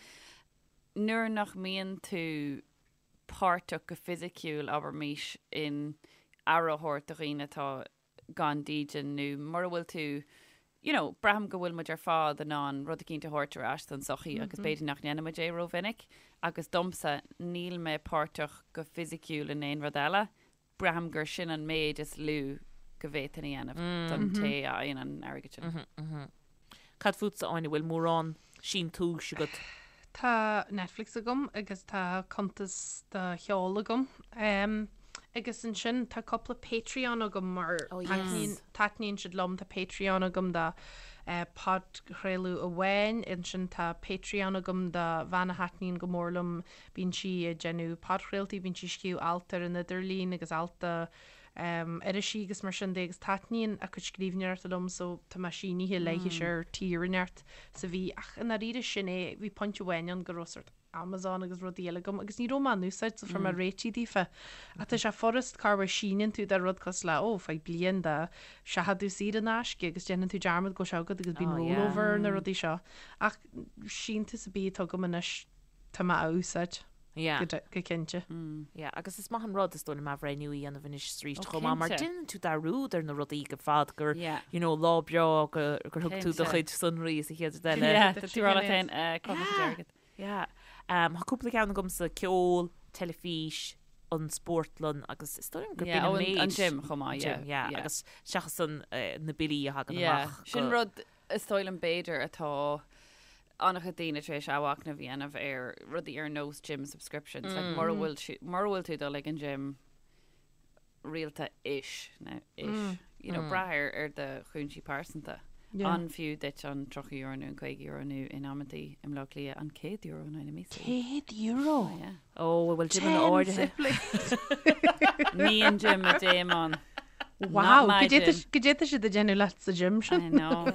nuair nach mbíonn tú páirteach go fisiciúil, abraimís, in aire a thabhairt do dhaoine atá gan dídean nó mura bhfuil tú, you know, braithim go bhfuil muid ar fad in ann rud eicínt a thabhairt ar ais don tsochaí agus b'fhéidir nach ndéanann muid é rómhinic agus domsa, níl mé páirteach go fisiciúil in aon rud eile, braithim gur sin an méid is lú go bhféadfainn a dhéanamh don té a fhaigheann an airgead
sin. Cad fútsa, Áine, bhfuil mórán síntiúis agat?
Tá Netflix agam agus tá cuntas do cheol agam. Agus ansin tá cúpla Patreon agam mar taitníonn, taitníonn siad liom. Tá Patreon agam do podchraoladh amháin, ansin tá Patreon agam do bhean a thaitníonn go mór liom. Bíonn sí ag déanamh podchraoltaí, bíonn sí ag scríobh alt ar an idirlíon agus alt do irisí agus mar sin de agus taitníonn a cuid scríbhneoireachta liom so tá mé sínithe léithi ar tier inteacht sa mhí ach i ndáiríre sin é, bhí pointe amháin ann go raibh sort Amazon agus rudaí eile agam agus ní raibh mé á n-úsáid so fuair mé réitithe daofa. Ach tá sé furast corruair síneann tú do rud cosúil le ó faigh bliain de seachadadh saor in aisce agus déanann tú dearmad go bhfuil sé agat agus bíonn rollover ar na rudaí seo. Ach síntiús ar bith atá agam anois tá mé á úsáid.
Yeah.
Go cinnte.
Yeah, agus is maith an rud, is dóigh liom, athbhreithniú a dhéanamh anois is arís chomh maith, mar déanann tú dearúd ar na rudaí go fad gur, you know, lá breá gur thug tú do chuid sonraí is an chéad rud eile.
Yeah, tá tú ag rá leat féin, cá bhfuil mo chuid airgid?
Yeah. Tá cúpla ceann agamsa, ceol, teilifís, an spórtlann agus is dóigh liom gur b'in an méid.
An gym chomh maith, yeah.
Gym, yeah, agus seachas san na billí a thagann amach.
Sin rud is dóigh liom b'fhéidir atá an-chuid daoine tar éis athmhachnamh a dhéanamh ar rudaí ar nós gym subscriptions. Like, mura bhfuil mura bhfuil tú ag dul ag an gym rialta ish, nó ish, you know, brath ar ar do chúinsí pearsanta. An fiú duit an €30 nó an €50 nó in amantaí i mBleá Cliath an €100 in aghaidh na míosa?
€100?
Oh, yeah.
Ó, bhfuil gymeanna áirithe.
Ní an gym a dtéim ann.
Wow, goidé tá siad ag déanamh leat sa gym sin.
I know.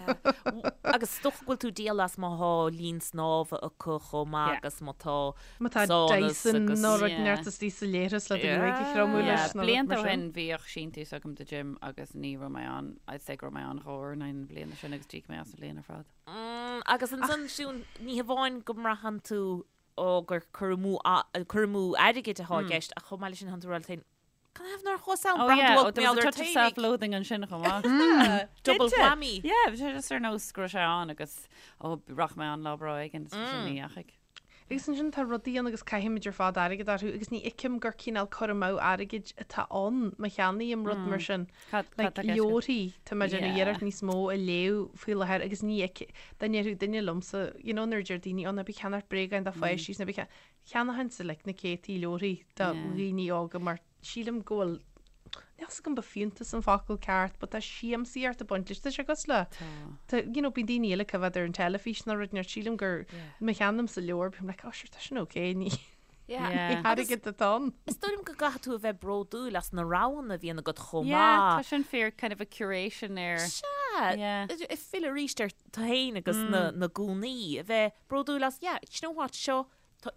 Agus is dócha go bhfuil tú ag díol as má thá linn snámha acu chomh maith agus má tá
Má tá
saunas
Dyson
agus.
nó rud inteacht istigh sa leithreas le do ghruaig a thriomú leis nó rud
Blianta
mar
ó
sin.
shin bhíodh síntiús agam do gym agus ní raibh mé ann, I'd say go raibh mé ann dhá uair in aghaidh na bliana sin agus d'íoc mé as an bhliain ar fad.
Agus ansan, Siún, ní hamháin go mbraitheann tú ó gur cur amú cur amú airgid atá i gceist ach chomh maith leis sin, tánn tú ag rá leat féin. Can I have nár chuas ann?
Oh yeah, oh, there was a touch of self-loathing ansin chomh
maith. Double whammy.
Yeah, bhí sé just ar nós go raibh sé ann agus oh, rachaidh mé ann lá breá éigin, is sin ní dheachaigh.
Agus ansin tá rudaí ann agus caithimid ar fad airgead orthu agus ní fheicim gur cineál cur amú airgid atá ann má cheannaím rud mar sin.
Cad
Like
tá i gceist agat?
leabharthaí, tá mé ag déanamh
Yeah.
iarracht níos mó a léamh faoi láthair agus ní fheicim, dá ndéarfadh duine liomsa, you know nuair a deir daoine, oh ná bí ag ceannacht bréagáin do pháistí is ná bí ag cean-" Cheannóchainnse like na céadtaí leabharthaí do dhaoine óga mar sílim go bhfuil, níl 's agam ba fiúntas an focal ceart but tá siamsaíocht ag baint leis, tá sé cosúil le, tá, you know, bíonn daoine eile ag coimhéad ar an teilifís nó rud inteacht, sílim gur má cheannaímse leabhar bím like oh sure tá sin ok, ní
Yeah.
airgead atá ann.
Is dóigh liom go gcaithfidh tú a bheith bródúil as na roghanna a bhíonn agat chomh
Yeah, tá
maith.
sin fíor, kind of a curation ar.
Sea,
Yeah.
ag filleadh arís ar tú féin agus na gúnaí, a bheith bródúil as, yeah, do you know what, seo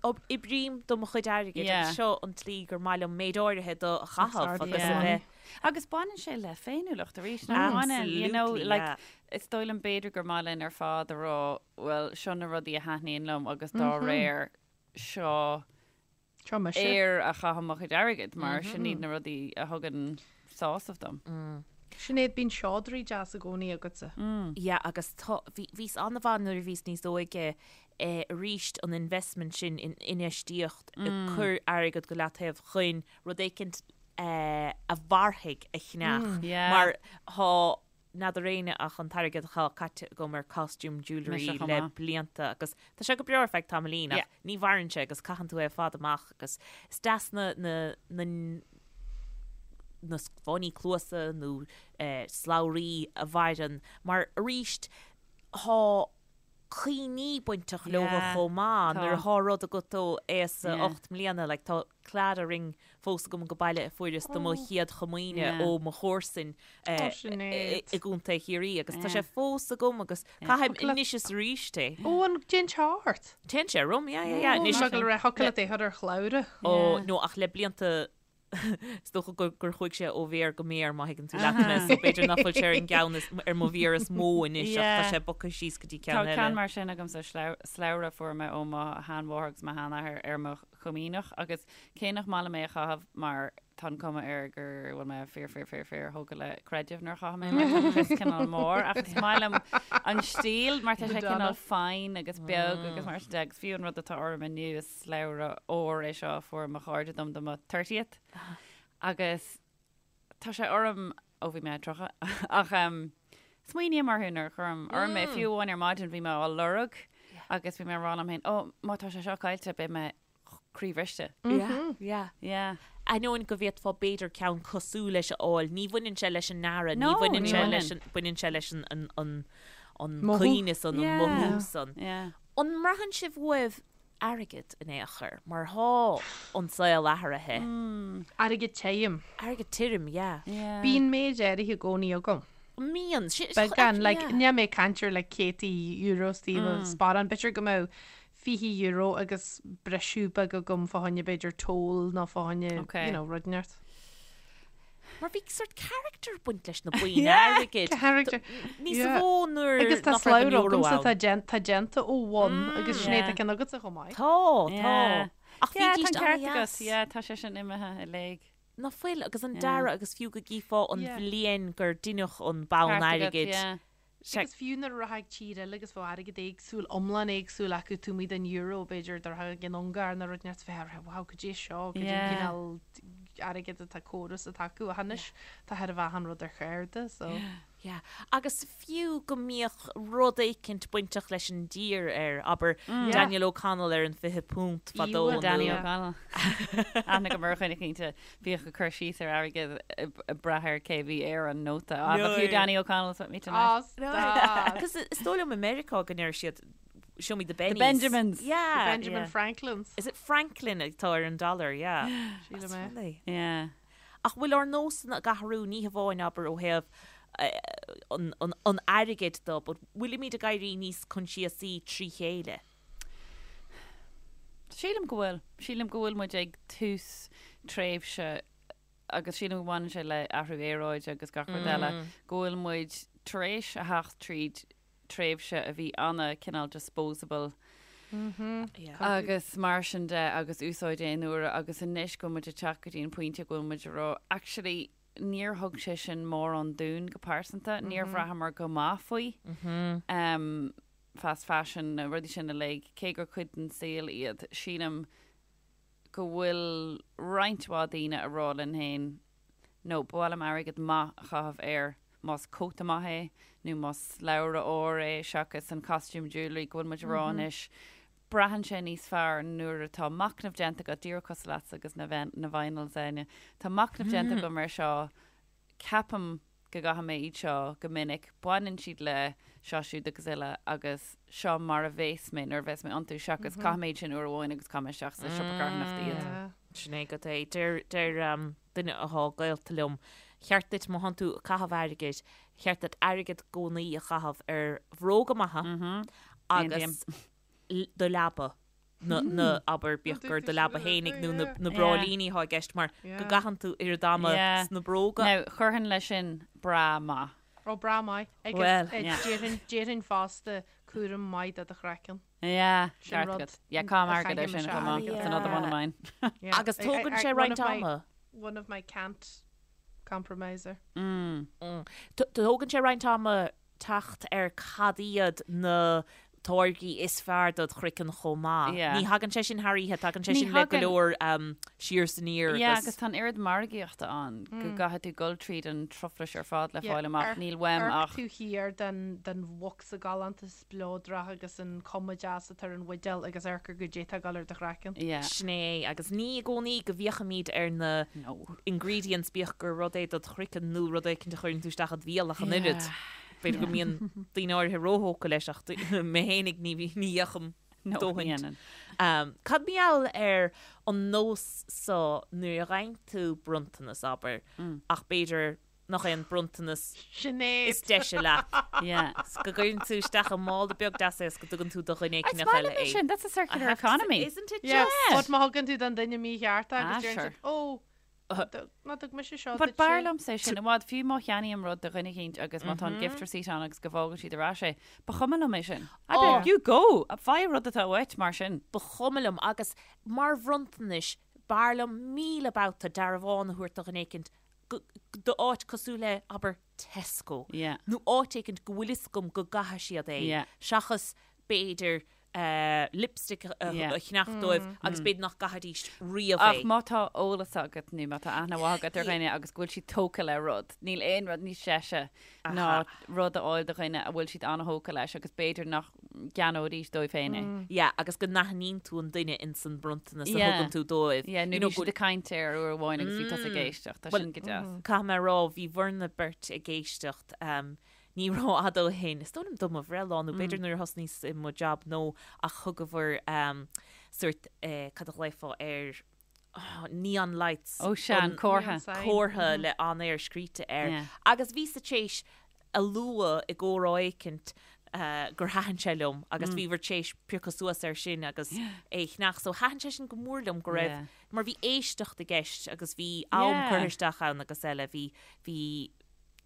Oibrím do mo chuid airgid agus seo an tslí gur maith liom méid áirithe de a chaitheamh agus a bheith.
Agus baineann sé le féiniúlacht arís, nach mbaineann? You know, like, is dóigh liom b'fhéidir gur maith linn ar fad a rá, bhuel, seo na rudaí a thaitníonn liom agus dá réir seo air a chaithim mo chuid airgid mar sin iad na rudaí a thugann sásamh dom.
Sinéad, bíonn seodra deas i gcónaí agatsa.
Yeah, agus tá, bhí, bhíos an-mhaith nuair a bhíos níos óige eh, arís an investment sin in infheistíocht, ag cur airgead go leataobh chun rud éicint eh, a mhairfidh a cheannach.
Yeah.
Mar thá n'fheadar éinne ach an t-airgead atá caite agam ar costume jewellery
Mise chomh
le
maith.
blianta agus tá sé go breá ar feadh tamaillín ach
Yeah.
ní mhaireann sé agus caitheann tú é ar fad amach agus is deas na, na, na, na fáinní cluasa nó eh, slabhraí a mhaireann mar arís thá cuimhní bainteach leo chomh maith nuair atá rud agat ó aois a 8 mbliana, like tá Claddagh ring fós agam go baile a fuaireas do mo chéad chomaoine ó mo chomharsain i gContae Chiarraí agus tá sé fós agam agus caithim anois is arís é.
Ó an dtéann sé ort?
Téann sé orm, yeah, yeah, yeah. Anois.
Go raibh thiocfadh leat é a chur ar shlabhra.
Ó, no ach le blianta Is dócha gur chuaigh sé ó mhéar go méar, má thuigeann tú leat mé, so b'fhéidir nach bhfuil sé ar an gceann is, ar mo mhéar is mó anois ach tá sé bogtha síos go dtí ceann
Tá
eile.
ceann mar sin agamsa, slabhra a fuair mé ó mo sheanmháthair agus mo sheanathair ar mo chomaoineach agus cé nach maith liom é a chaitheamh mar tá an cuma air go bhfuil mé fíor fíor fíor fíor thógtha le creideamh nuair a chaithim é mar tá an crios cineál mór ach is maith liom an stíl mar tá sé cineál fine agus beag agus mar sin de agus fiú an rud atá orm inniu is Slabhra óir é seo a fuair mo chairde dom do mo 30th agus tá sé orm ó bhí mé 30 ach smaoiním orthu nuair a chuirim orm é. Fiú amháin ar maidin bhí mé á lorg agus bhí mé ag rá liom féin, ó má tá sé seo caillte beidh mé croíbhriste.
Yeah, yeah.
Yeah.
Ainneoin go bhféadfá b'fhéidir ceann cosúil leis a fháil, ní bhaineann sé leis an ndearadh, ní bhaineann sé leis an, baineann sé leis an, an, an, an cuimhne san, an mothú san.
Yeah.
An mbraitheann sibh uaibh airgead in aon chor, mar thá an saol athraithe.
Airgead tirim.
Airgead tirim, yeah.
Bíonn méid áirithe i gcónaí agam.
Mbíonn.
Beagán, like, níl mé ag caint ar like céadtaí euro istigh i mo sparán, b'fhéidir go mbeadh €20 agus briseadh beag agam fá choinne b'fhéidir toll nó fá choinne, you know, rud inteacht.
Mar bhí sort character ag baint leis na boinn airgid.
Character.
Níos mó nuair
Agus tá
nach raibh an
slabhra
euro
agamsa
ann.
atá déan- tá déanta ó bhonn agus Sinéad tá ceann agatsa chomh maith.
Tá, tá. Ach
Yeah,
bhídís
tá an ceart
an-dheas.
agat. Yeah, tá sé sin imithe i léig.
Ná fuil, agus an dearadh agus fiú go gcífeá an
Yeah.
bhliain gur deineadh an bonn
Ceart agat,
airgid.
yeah.
Sea.
Agus fiú nuair a rachfá ag tír eile agus bheadh airgead éagsúil, iomlán éagsúil acu, taobh amuigh den euro, b'fhéidir, dá rachfá ag an Ungáir nó rud inteacht bheifeá ag rá, wow, cad é seo, cad é an
Yeah.
cineál airgead atá córas atá acu. Ach anois tá chóir a bheith achan rud ar chárta, so.
Yeah. Agus fiú go mbíodh rud éicint bainteach leis an dtír air, abair, Daniel O'Connell ar an £20 fadó
Íomhá
nó.
Danny O'Connell. Aithne agam ar dhuine cinnte. Bhíodh ag cur síos ar airgead ag brath ar cé bhí ar an nóta. Ah, but few Danny O'Connell's with me tonight.
Ah, stop.
Because is dóigh liom i Meiriceá go ndeir siad show me the bennies.
The Benjamins.
Yeah.
The Benjamin
yeah.
Franklins.
Is it Franklin atá ar an dollar, yeah.
Sílim
That's
é.
funny.
Yeah.
Ach bhfuil ár nósanna ag athrú ní hamháin abair ó thaobh an, an, an airgid de, but bhfuilimid ag éirí níos coinsiasaí trí chéile?
Sílim go bhfuil. Sílim go bhfuil muid ag tús tréimhse, agus sílim go mbaineann sé le athrú aeráide agus gach rud eile, go bhfuil muid tar éis a theacht tríd tréimhse a bhí ana cineál disposable. Agus mar sin de agus úsáid aon uaire agus anois go bhfuil muid ag teacht go dtí an pointe go bhfuil muid ag rá actually níor thug sé sin mórán dúinn go pearsanta, níor bhraitheamar go maith faoi fast fashion na rudaí sin uilig, cé gur cuid den saol iad, sílim go bhfuil roinnt mhaith daoine ag rá linn féin no, ba mhaith liom airgead maith a chaitheamh air, más cóta maith é nó más slabhra óir é seachas an costume jewellery go bhfuil muid ag rá anois. Braitheann sé níos fearr nuair atá machnamh déanta agat, díreach cosúil leatsa agus na na vinyls, Áine. Tá machnamh déanta agam ar seo, ceapaim go gcaithfidh mé iad seo go minic, baineann siad le seo siúd agus uile agus seo mar a bhéas mé nuair a bhéas mé iontu seachas caithfidh mé iad sin uair amháin agus caithfidh mé isteach sa siopa carthanachta iad.
Sin é agat é. Deir deir duine athá gaolta liom, cheart duit má thánn tú ag caitheamh airgid, cheart duit airgead i gcónaí a chaitheamh ar bhróga maithe agus do leaba, na, na, abair, bíodh gur do leaba fhéinig nó na, na bráillíní athá i gceist mar go gcaitheann tú oiread ama sna bróga.
Now, chuirfinn leis sin bra maith.
Ó, bra maith. Agus
Bhuel.
déarfainn, déarfainn fosta cúram maith do do chraiceann.
Yeah,
Sin
ceart
rud
agat. Yeah, caithim
a
airgead ar
chaithfidh
sin
mise
chomh maith.
airgead.
That's another one of mine.
Yeah.
Agus
I- I-
tógann
I-
sé
one
roinnt
of my-
ama.
One of my can't compromiser.
Tógann sé roinnt ama teacht ar cad iad na táirgí is fearr dod chraiceann chomh maith.
Yeah.
Ní thagann sé sin thar oíche, tagann sé
Ní
sin le go
thagann.
leor siar is aniar
Yeah,
agus.
agus tá an oiread margaíochta ann go gcaithfidh tú dul tríd an truflais ar fad le
Yeah,
fáil amach.
amharc-
Níl uaim
amharc
ach
tú thiar den den bhocsa galánta spleodrach agus an cuma deas atá ar an bhuidéal agus amharc ar goidé atá ag dul ar do chraiceann.
Yeah.
Sin é, agus ní i gcónaí go bhféachaimid ar na
No.
ingredients bíodh gur rud é dod chraiceann nó rud éicint a chuireann tú isteach id bhéal ach an oiread.
Yeah.
B'fhéidir go mbíonn daoine áirithe róthógtha leis ach mé fhéinig ní ní fhéachaim
No, ní
dóthaint.
dhéanann.
Um, cad mar gheall ar an nós so nuair a gheibheann tú bronntanas, abair, ach b'fhéidir nach é an bronntanas
Sinéad!
is deise leat.
Yeah.
's go gcuireann tú isteach i mála beag deas é is go dtugann tú do dhuine
It's
éicint
maith
eile
liom é
é.
sin, that's a
I
circular
have to say,
economy.
Isn't it
Yeah,
just?
but má thugann tú don duine mícheart é
Ah,
agus deireann
sure.
siad, ó, ná thug mise seo
But
duit
b'fhearr
sé.
liomsa é sin i bhfad, fiú má cheannaím rud do dhuine éicint agus má tá an gift receipt ann agus go bhfágann siad ar ais é, ba chuma liom é sin. I'd be like, you go! Faigh rud atá uait mar sin.
Ba chuma liom agus mar bhronntanais b'fhearr liom 1000 babhta dearbhán a thabhairt do dhuine éicint go d'áit cosúil le, abair, Tesco
Yeah.
nó áit éicint go bhfuil fhios agam go gcaithfidh siad é
Yeah.
seachas b'fhéidir lipstick a
Yeah.
cheannach dóibh agus b'fhéidir nach gcaithfidís riamh
Ach
é.
má tá eolas agat nó má tá aithne mhaith agat ar dhuine agus go bhfuil siad tógtha le rud, níl aon rud níos deise ná rud a fháil do dhuine a bhfuil siad an-thógtha leis agus b'fhéidir nach gceannóidís dóibh féin é.
Yeah, agus go n-aithníonn tú an duine ins an bronntanas a
Yeah.
thugann tú dóibh.
Yeah, nó
You know,
bhí siad ag caint air uair amháin agus bhí tusa ag éisteacht, tá
Well,
sin go deas.
Caithfidh mé a rá, bhí bhur mbeirt ag éisteacht, ní rófhada ó shin, is dóigh liom do mo bhreithlá nó b'fhéidir nuair a thosnaíos i mo jab nó ach thugabhair sórt, cad a ghlaofá air, neon lights.
Ó sea, an comhartha.
Comhartha le On Air scríte air. Agus bhíos-sa tar éis a lua i gcomhrá éicint gur thaitin sé liom agus bhíobhair tar éis piocadh suas air sin agus é a cheannach. So thaitin sé sin go mór liom go raibh, mar bhí éisteacht i gceist agus bhí am curtha isteach ann agus eile, bhí, bhí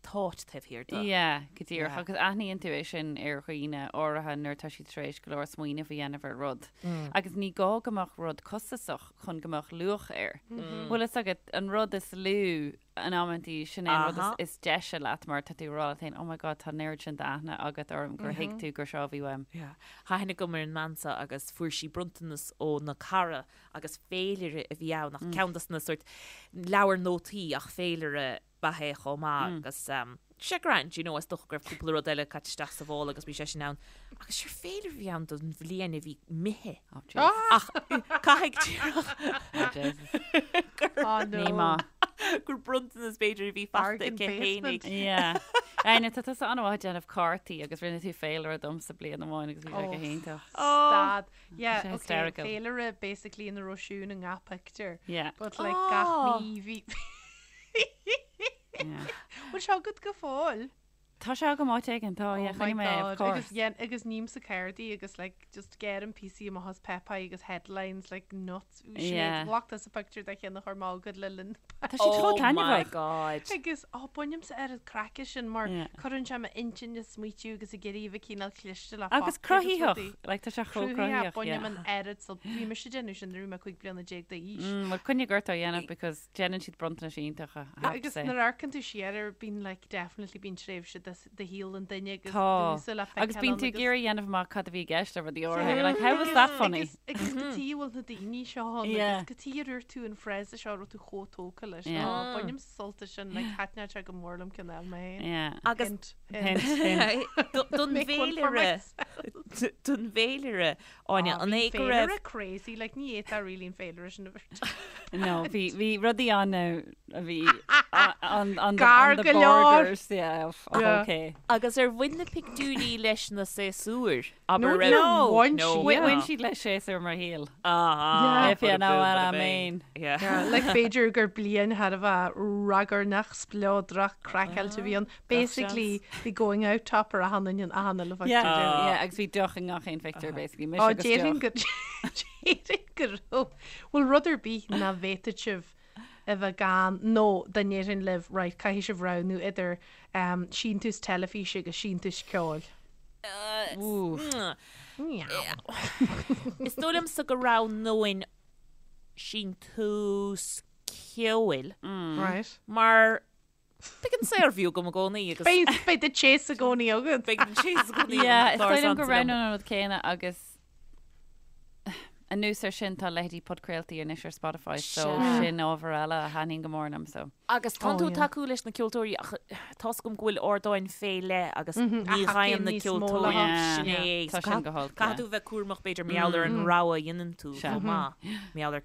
thought taobh thiar de.
Yeah, go díreach. Agus aithníonn tú é sin ar dhaoine áirithe nuair atá siad tar éis go leor smaoineamh a dhéanamh ar rud. Agus ní gá go mbeadh rud costasach chun go mbeadh luach air. Bhfuil fhios agat, an rud is lú in amantaí, sin é an rud is deise leat mar tá tú ag rá leat féin, oh my god, tá an oiread sin d'aithne agat orm gur thuig tú gur seo a bhí uaim.
Yeah. Tá aithne agam ar an mbean seo agus fuair sí bronntanas óna cara agus féilire a bhí ann ach ceann dos na sórt leabhar nótaí ach féilire ba ea é chomh maith agus sé grand, you know, is dócha go raibh cúpla rud eile caite isteach sa mhála agus bhí sé sin ann. Agus sure féilire a bhí ann don bhliain a bhí imithe.
Oh, Jesus.
Ach caithfidh díreach
Oh, Jesus.
Oh, no.
Ní maith.
gur bronntanas b'fhéidir a bhí faighte
Bargain
aici
basement.
fhéinig.
Yeah. Áine, tá tusa an-mhaith ag déanamh cártaí agus rinne tú féilire domsa bliain amháin agus bhí sé go
Oh.
hiontach.
Stad. Yeah,
Sé
okay,
hysterical.
féilire basically ina raibh Siún i ngach pictiúr.
Yeah.
But like gach
Oh.
mí bhí
Yeah.
Bhfuil sé agat go fóill?
Tá sé agam áit éigin, tá, yeah,
Oh my
choinnigh mé é, of
God.
course.
Agus dhein, agus ním sa cardaí agus like just geirim píosaí amach as páipéir agus headlines like nuts. Sinéad,
Yeah.
ghlac tusa pictiúr de cheann a chuir mé chugat le linn
Tá siad chomh
Oh my
taitneamhach.
God.
Agus ó bainimse oiread craic as sin mar
Yeah.
cuireann sé m'intinn ag smaoitiú agus ag iarraidh a bheith cineál cliste le
Agus
fácta agus
cruthaitheach,
rudaí.
like tá sé chomh
Cruthaitheach,
cruthaitheach,
bainim
yeah.
an oiread so bhí mise ag déanamh sin nuair a bhí mé 15 bliana d'aois.
Mm, well coinnigh ort á dhéanamh because déanann siad bronntanais iontacha, I have to
Agus
say.
nuair a amharcann tú siar air bíonn like definitely bíonn tréimhse de de shaol an duine agus
Tá.
dúsa le
Agus
feiceáil
bíonn
ann
tú ag
agus
iarraidh a dhéanamh amach cad a bhí i gceist le rudaí áirithe. You're like, how was that funny?
Agus agus cad chuige a bhfuil na daoine seo ann
Yeah.
agus cad chuige ar dhúirt tú an phrase seo a raibh tú chomh tógtha leis.
Yeah.
Ó, bainim sult as sin, like thaitneodh sé go mór liom ceann a fháil mé féin.
Yeah.
Agus
Hint, hint.
Hint, hint.
don
Make one for
bhféilire,
myself.
don bhféilire, Áine,
Ah,
an
bhí
é go raibh
féilire crazy, like ní fhéadfá really an féilire sin a bheith.
No, bhí bhí rudaí ann a bhí on, on, the,
Gar
on the
go leor.
borders, yeah, of, of
Yeah.
okay.
Agus ar bhain na pictiúirí leis na séasúir?
No,
Abair raibh
no, bhain
No.
siad.
Bhain bhain siad le séasúr mo shaoil.
Ah,
Yeah.
If you know what I mean.
Yeah.
Yeah, like b'fhéidir gur bliain thar a bheith ragairneach spleodrach craiceáilte a bhí ann. Basically, bhí going out topper achan duine in achan uile
Yeah,
phictiúr.
yeah, agus bhí deoch i ngach aon phictiúr, basically. Mise
Ó,
agus
déarfainn
deoch.
go déarfainn go raibh. Bhfuil rud ar bith nach bhféadfadh sibh a bheith gan nó dá ndéarfainn libh, right, caithfidh sibh roghnú idir um, síntiús teilifíse agus síntiús ceoil.
Oof.
Meow.
Is dóigh liomsa go roghnóinn síntiús ceoil
Right.
mar beidh an saorview agam i gcónaí agus
Beidh beidh the chase i gcónaí agat.
beidh an chase i gcónaí
Yeah, is
agam.
dóigh liom go
Dár
roghnóinn an rud céanna agus anuas ar sin tá leithéidí podchraoltaí anois ar Spotify so
Sea.
sin ábhar eile a thaitníonn go mór liom so.
Agus tánn
Oh,
tú ag
yeah.
tacú leis na ceoltóirí ach tá's agam go bhfuil ardáin fé leith agus
Mhm,
ní
a
ghaibheann
thacaíonn
na
níos mó
ceoltóirí
leo.
sin
Yeah.
é.
Tá sin go holc,
Caithfidh
yeah.
tú bheith cúramach b'fhéidir mar gheall ar an rogha a dhéanann tú
Sea.
chomh maith. Mar gheall ar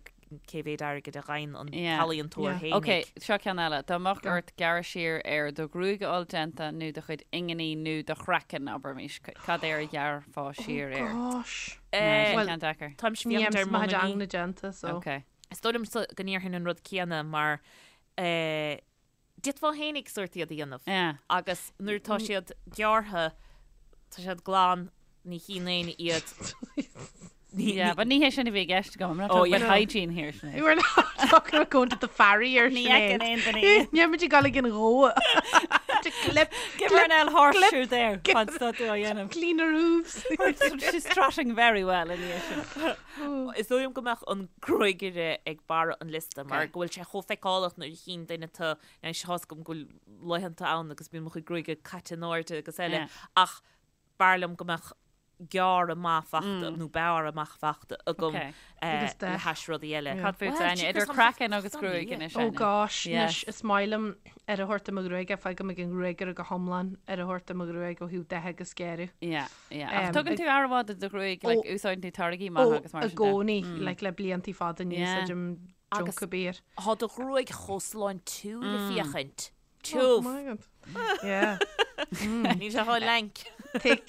cé mhéad airgid a ghaibheann an
Yeah.
t-ealaíontóir
Yeah.
fhéinig.
Ok, seo ceann eile. Dá mbeadh ort gearradh siar ar do ghruaig a fháil déanta nó do chuid inginí nó do chraiceann, abraimis, cad air a ghearrfá siar air?
Gosh.
Nah,
Eh,
sin
Well,
ceann deacair.
Táimse
Ní
féachaint ar
dhéanaim mo chuid
m'inginí.
ingne déanta, so.
Ok.
Is dóigh liomsa go ndéarfainn an rud céanna mar eh, d'fhéadfá fhéinig sórt iad a dhéanamh.
Yeah.
Agus nuair atá siad gearrtha, tá siad glan, ní chíonn éinne iad. Ní-
Yeah,
ní-
but ní hé sin a bhí i gceist agam. I'm not
Oh,
talking about
yeah.
hygiene here, Sinéad.
We're not talking about going to the farrier,
Ní
Sinéad.
fheiceann aon duine iad.
Ní muid ag dul ag an ghó. To clip,
Give her an L horseshoe there. Fan stop tú á dhéanamh.
clean her hooves.
She's trotting very well in the issue.
Is dóigh liom go mbeadh an gruagaire ag barra an liosta mar
Okay.
go bhfuil sé chomh feiceálach nuair a chíonn duine tú anois tá's agam go bhfuil laethanta ann agus bíonn mo chuid gruaige caite in airde agus eile
Yeah.
ach b'fhearr liom go mbeadh gearradh maith fachta nó bearradh maith fachta agam
Okay.
Agus
le
dath.
hais rudaí eile.
Cad fút
Well,
Áine,
jeepers,
idir
I'm
craiceann agus
funny,
gruaig
yeah.
anois
Oh
Áine.
gosh,
Yes.
anois is maith liom ar a thabhairt do mo ghruaig, fágaim ag an ghruagaire go hiomlán ar a thabhairt do mo ghruaig ó thaobh dath agus gearradh.
Yeah, yeah. Ach
Um,
tugann
ag-
tú aire mhaith do do ghruaig, like,
Ó,
úsáideann tú táirgí
Ó,
maithe agus mar
i
sin de.
gcónaí, like, le bliantaí fada ní
Yeah.
úsáidim
Agus-
junk ar bith.
Tá do ghruaig chomh sláintiúil le féachaint.
Oh
Tiubh.
my God. Yeah.
Níl sé chomh lank.
Take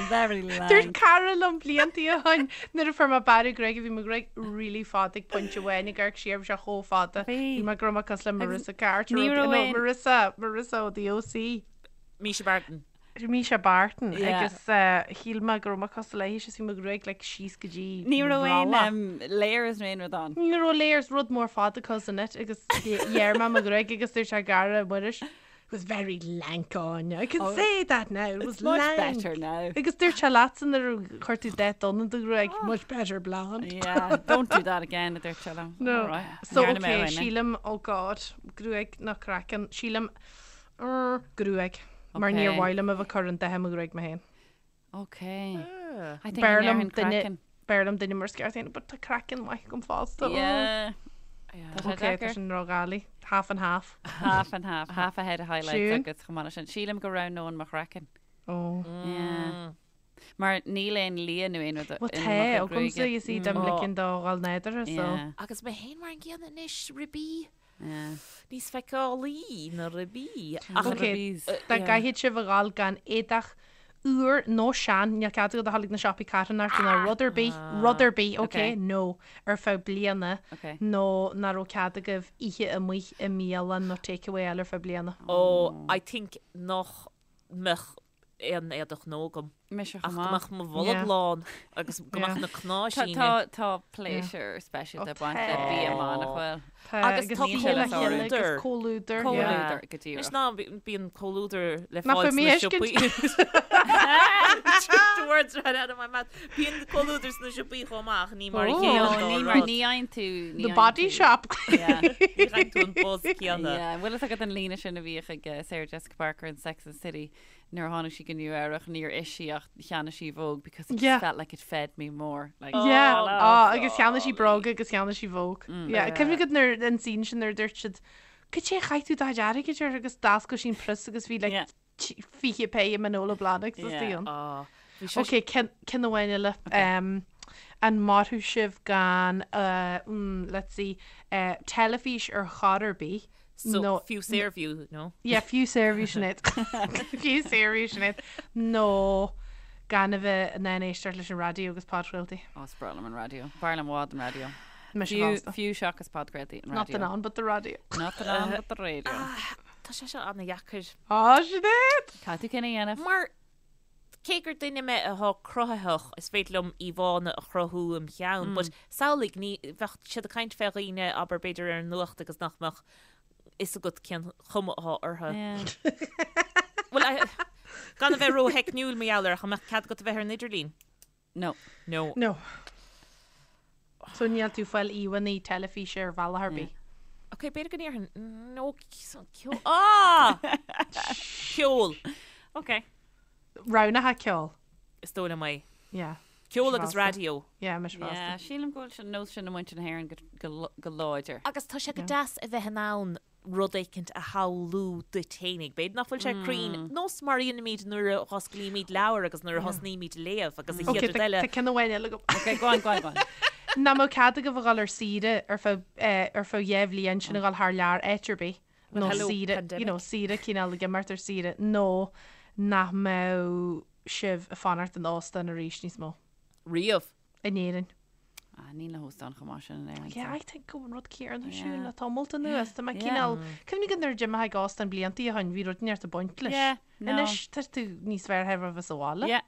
Very
Dúirt
lank.
cara liom bliantaí ó shin nuair a fuair mé bearradh gruaige bhí mo ghruaig really fada ag pointe amháin ag amharc siar bhí sé chomh fada.
Bhí.
Bhí mé go raibh mé cosúil le Marissa Carter
ní
ó-
raibh
no,
aon-
Marissa Marissa ó The OC.
Mischa Barton.
Mischa Barton
Yeah.
agus eh, shíl mé go raibh mé cosúil léi is bhí mo ghruaig like síos go dtí
Ní raibh aon
rolla.
um, layers nó aon rud ann.
Ní raibh layers rud mór fada cousin it agus ghearr mé mo ghruaig agus dúirt sé cara Muiris It was very lank on. I can say that now. It was
It's much
lank.
better now.
Agus dúirt sé leatsa nuair a chuir tú dath donn i do ghruaig, much better blonde.
Yeah, don't do that again, a dúirt sé liom.
No.
All right.
So
Dhearna mé
okay,
ó shin, eh?
sílim, oh god, gruaig nó craiceann, sílim er, gruaig. Mar
Okay.
níor mhaith liom a bheith ag cur an dath i mo ghruaig mé féin.
Okay. I think
B'fhearr liom
an
duine
craiceann.
b'fhearr liom duine mar is ceart féin, but tá craiceann maith agam fosta. Oh.
Yeah. Tá sé
Okay, tá
deacair.
sin ródhoiligh. Half and half.
Half and half, half a head of highlights
Siún?
agus chomh maith leis sin. Sílim go roghnóinn mo chraiceann.
Oh.
Yeah. Mar níl aon lia nó aon rud
Well
in
tá,
mo chuid
agamsa
gruaige.
you see dom
Oh.
ligean dó dhul nádúrtha, so.
Yeah,
Agus mé féin mar an gcéanna anois, ribí.
yeah.
Níos feiceálaí na ribí. Ach
Okay.
Ribís.
Dá gcaithfidh sibh a ghabháil gan éadach úr nó sean, níl cead agat a dhul ag na siopaí carthanachta ná rud ar bith, rud ar bith, okay,
Okay.
no, ar feadh bliana,
Okay.
nó nach raibh cead agaibh ithe amuigh i mbialann nó takeaway eile ar feadh bliana.
Oh, I think nach mbeadh aon éadach nua agam.
Mise
Ach
chomh
go
maith.
mbeadh mo bholg
Yeah.
lán agus go mbeadh na
Tá
cnáimhsíní.
tá tá pléisiúr speisialta
Ó,
ag baint le
tá.
bia maith nach bhfuil?
Tá,
Agus
agus
tá
bia le chéile agus
comhluadar.
comhluadar. yeah.
Comhluadar go
Anois
díreach.
ná bíonn comhluadar le
Nach
fáil
bhfuil mé
sna
a
siopaí. The words right out of my mouth. Bíonn comhluadar sna siopaí chomh maith ach ní mar a
Oh.
chéile
No,
an dá
ní mar
rud.
ní fhaigheann tú ní
The
fhaigheann
Body
tú-
Shop.
Yeah.
Ní fhaigheann tú an buzz céanna.
Yeah, bhfuil fhios agat an líne sin a bhíodh ag eh, Sarah Jessica Parker in Sex and the City nuair a tháinig sí go Nua Eabhrac níor ith sí ach cheannaigh sí Vogue because it just
Yeah.
felt like it fed me more. Like,
Yeah,
Oh,
ah, agus cheannaigh sí bróga agus cheannaigh sí Vogue. Yeah,
Yeah.
cuimhním nuair an scene sin nuair a dúirt siad, Cad é a chaith tú do chuid airgid air agus d'oscail sí an prios agus bhí like
Yeah.
20 péire Manolo Blahniks
Yeah.
istigh ann.
Ah, bhí sé
Ok, ceann ceann amháin eile. Um, an mairfeadh sibh gan, uh, mm, let's see, uh, teilifís ar chor ar bith?
So,
nó
fiú Saorview, no?
Yeah, fiú Saorview Sinéad. Fiú Saorview Sinéad. Nó gan a bheith in ann éisteacht leis an raidió agus podchraoltaí.
Ó, is breá liom an raidió. B'fhearr liom i bhfad an raidió.
Mise
Fiú,
fosta.
fiú seachas podchraoltaí an
Not
raidió.
the on, but the radio.
Not the on, but the radio.
Tá sé seo an-dheacair.
Á, Sinéad!
Caithfidh tú cinneadh a dhéanamh.
Mar cé gur duine mé atá cruthaitheach, is féidir liom íomhánna a chruthú im cheann, but samhlaigh, ní, bheadh siad ag caint fé dhaoine, abair, b'fhéidir ar an nuacht agus nach mbeadh fhios agat cén chuma atá orthu. Bhuel, I- gan a bheith ró-theicniúil mar gheall air, ach an mbeadh cead agat a bheith ar an idirlíon?
No.
No.
No. So níl tú ag fáil íomhánna teilifíse ar bhealach ar bith.
Ok, b'fhéidir go ndéarfainn no ceol. Ah! Ceol.
Ok.
Roghnaithe ceol.
Is dóigh liom é.
Yeah.
Ceol agus
Mise fosta.
raidió.
Yeah, mise fosta.
Yeah, sílim go bhfuil an nós sin i muintir na hÉireann go, go, go láidir.
Agus tá sé go deas a bheith in ann rud éicint a shamhlú duit fhéinig. B'fhéidir nach bhfuil sé cruinn, nós mar a dhéanaimid nuair a dh'osclaímid leabhar agus nuair a thosnaímid a léamh agus an
Ok,
chéad rud
tá
eile.
tá ceann amháin eile agam.
Ok, go on, go on, go on.
Nach mbeadh cead agaibh a dhul ar saoire ar feadh eh, ar feadh 2 bhliain sin a dhul thar lear áit ar bith nó
hello,
saoire,
pandemic.
you know, saoire cineál ag imeacht ar saoire nó nach mbeadh sibh ag fanacht in óstán arís níos mó
Riamh.
in Éirinn.
Ah, níl na hóstáin chomh maith sin in Éirinn.
Yeah,
so.
I think go bhfuil an rud céanna
Yeah.
siúl le tamalt anuas. Tá mé
Yeah.
cineál, cuimhnigh go nuair a d'imigh ag óstán blianta ó shin, bhí rud inteacht ag baint leis.
Yeah, no.
Anois tá tú níos fearr thar a bheith sa bhaile.
Yeah.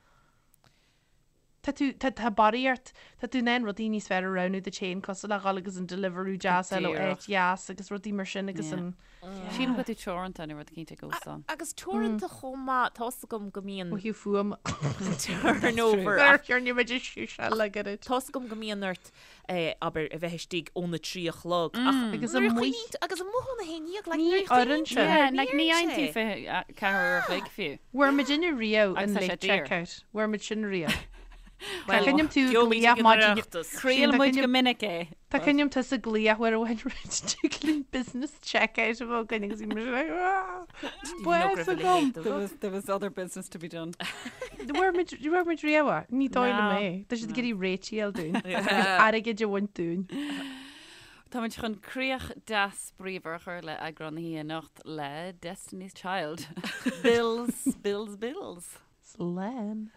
Tá tú, tá, tá barraíocht, tá tú in ann rudaí níos fearr a roghnú duit féin cosúil le dhul agus an Deliveroo deas a fháil ó
Díreach.
áit dheas agus rudaí mar sin agus
Yeah.
an,
Sílim go bhfuil tú teoranta nó rud eicínt ag óstán.
Agus teoranta chomh maith, tá's agam go mbíonn
ó thaobh fuaim.
turnover
Ar chearn muid is le gairid.
Tá's agam go mbíonn ort, eh, abair, a bheith istigh óna 3 a chlog ach
Agus
nuair a
amuigh.
choinníonn tú- agus amuigh óna 11, like,
Ní
nuair a choinníonn
oireann
tú
sé.
Yeah,
ní
like ní
oireann
fhaigheann tú
sé.
24 uair a chloig fiú.
Bhfuair muid inne riamh
Agus
an
tá sé
late
daor.
checkout. Bhfuair muid sin riamh. Tá
Well,
cuimhin liom tú
gheobhaimid
glaoch
ag an
maidin-
Oireachtas.
Chraol
Tá
muid
cuimhin
go minic é.
Tá cuimhin liom tusa ag glaoch uair amháin tig linn business checkout a bheith againn agus bhí muid like, "Ah,
raibh
bás
a
agam.
leithéid de
There
rud.
was, there was other business to be done.
Bhfuair muid bhfuair muid riamh é? Ní dóigh liom
No.
é. Tá siad ag iarraidh réitigh dúinn. Agus airgead a bhaint dúinn.
Táimid chun críoch deas bríomhar a chur le eagrán na hoíche anocht le Destiny's Child. Bills, bills, bills.
Slán.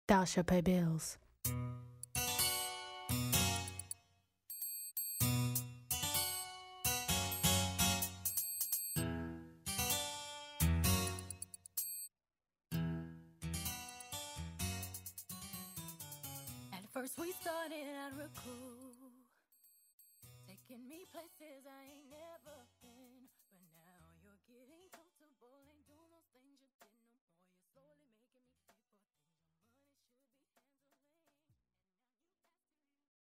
Thou shalt pay bills.
At first we started out real cool, taking me places I ain't never.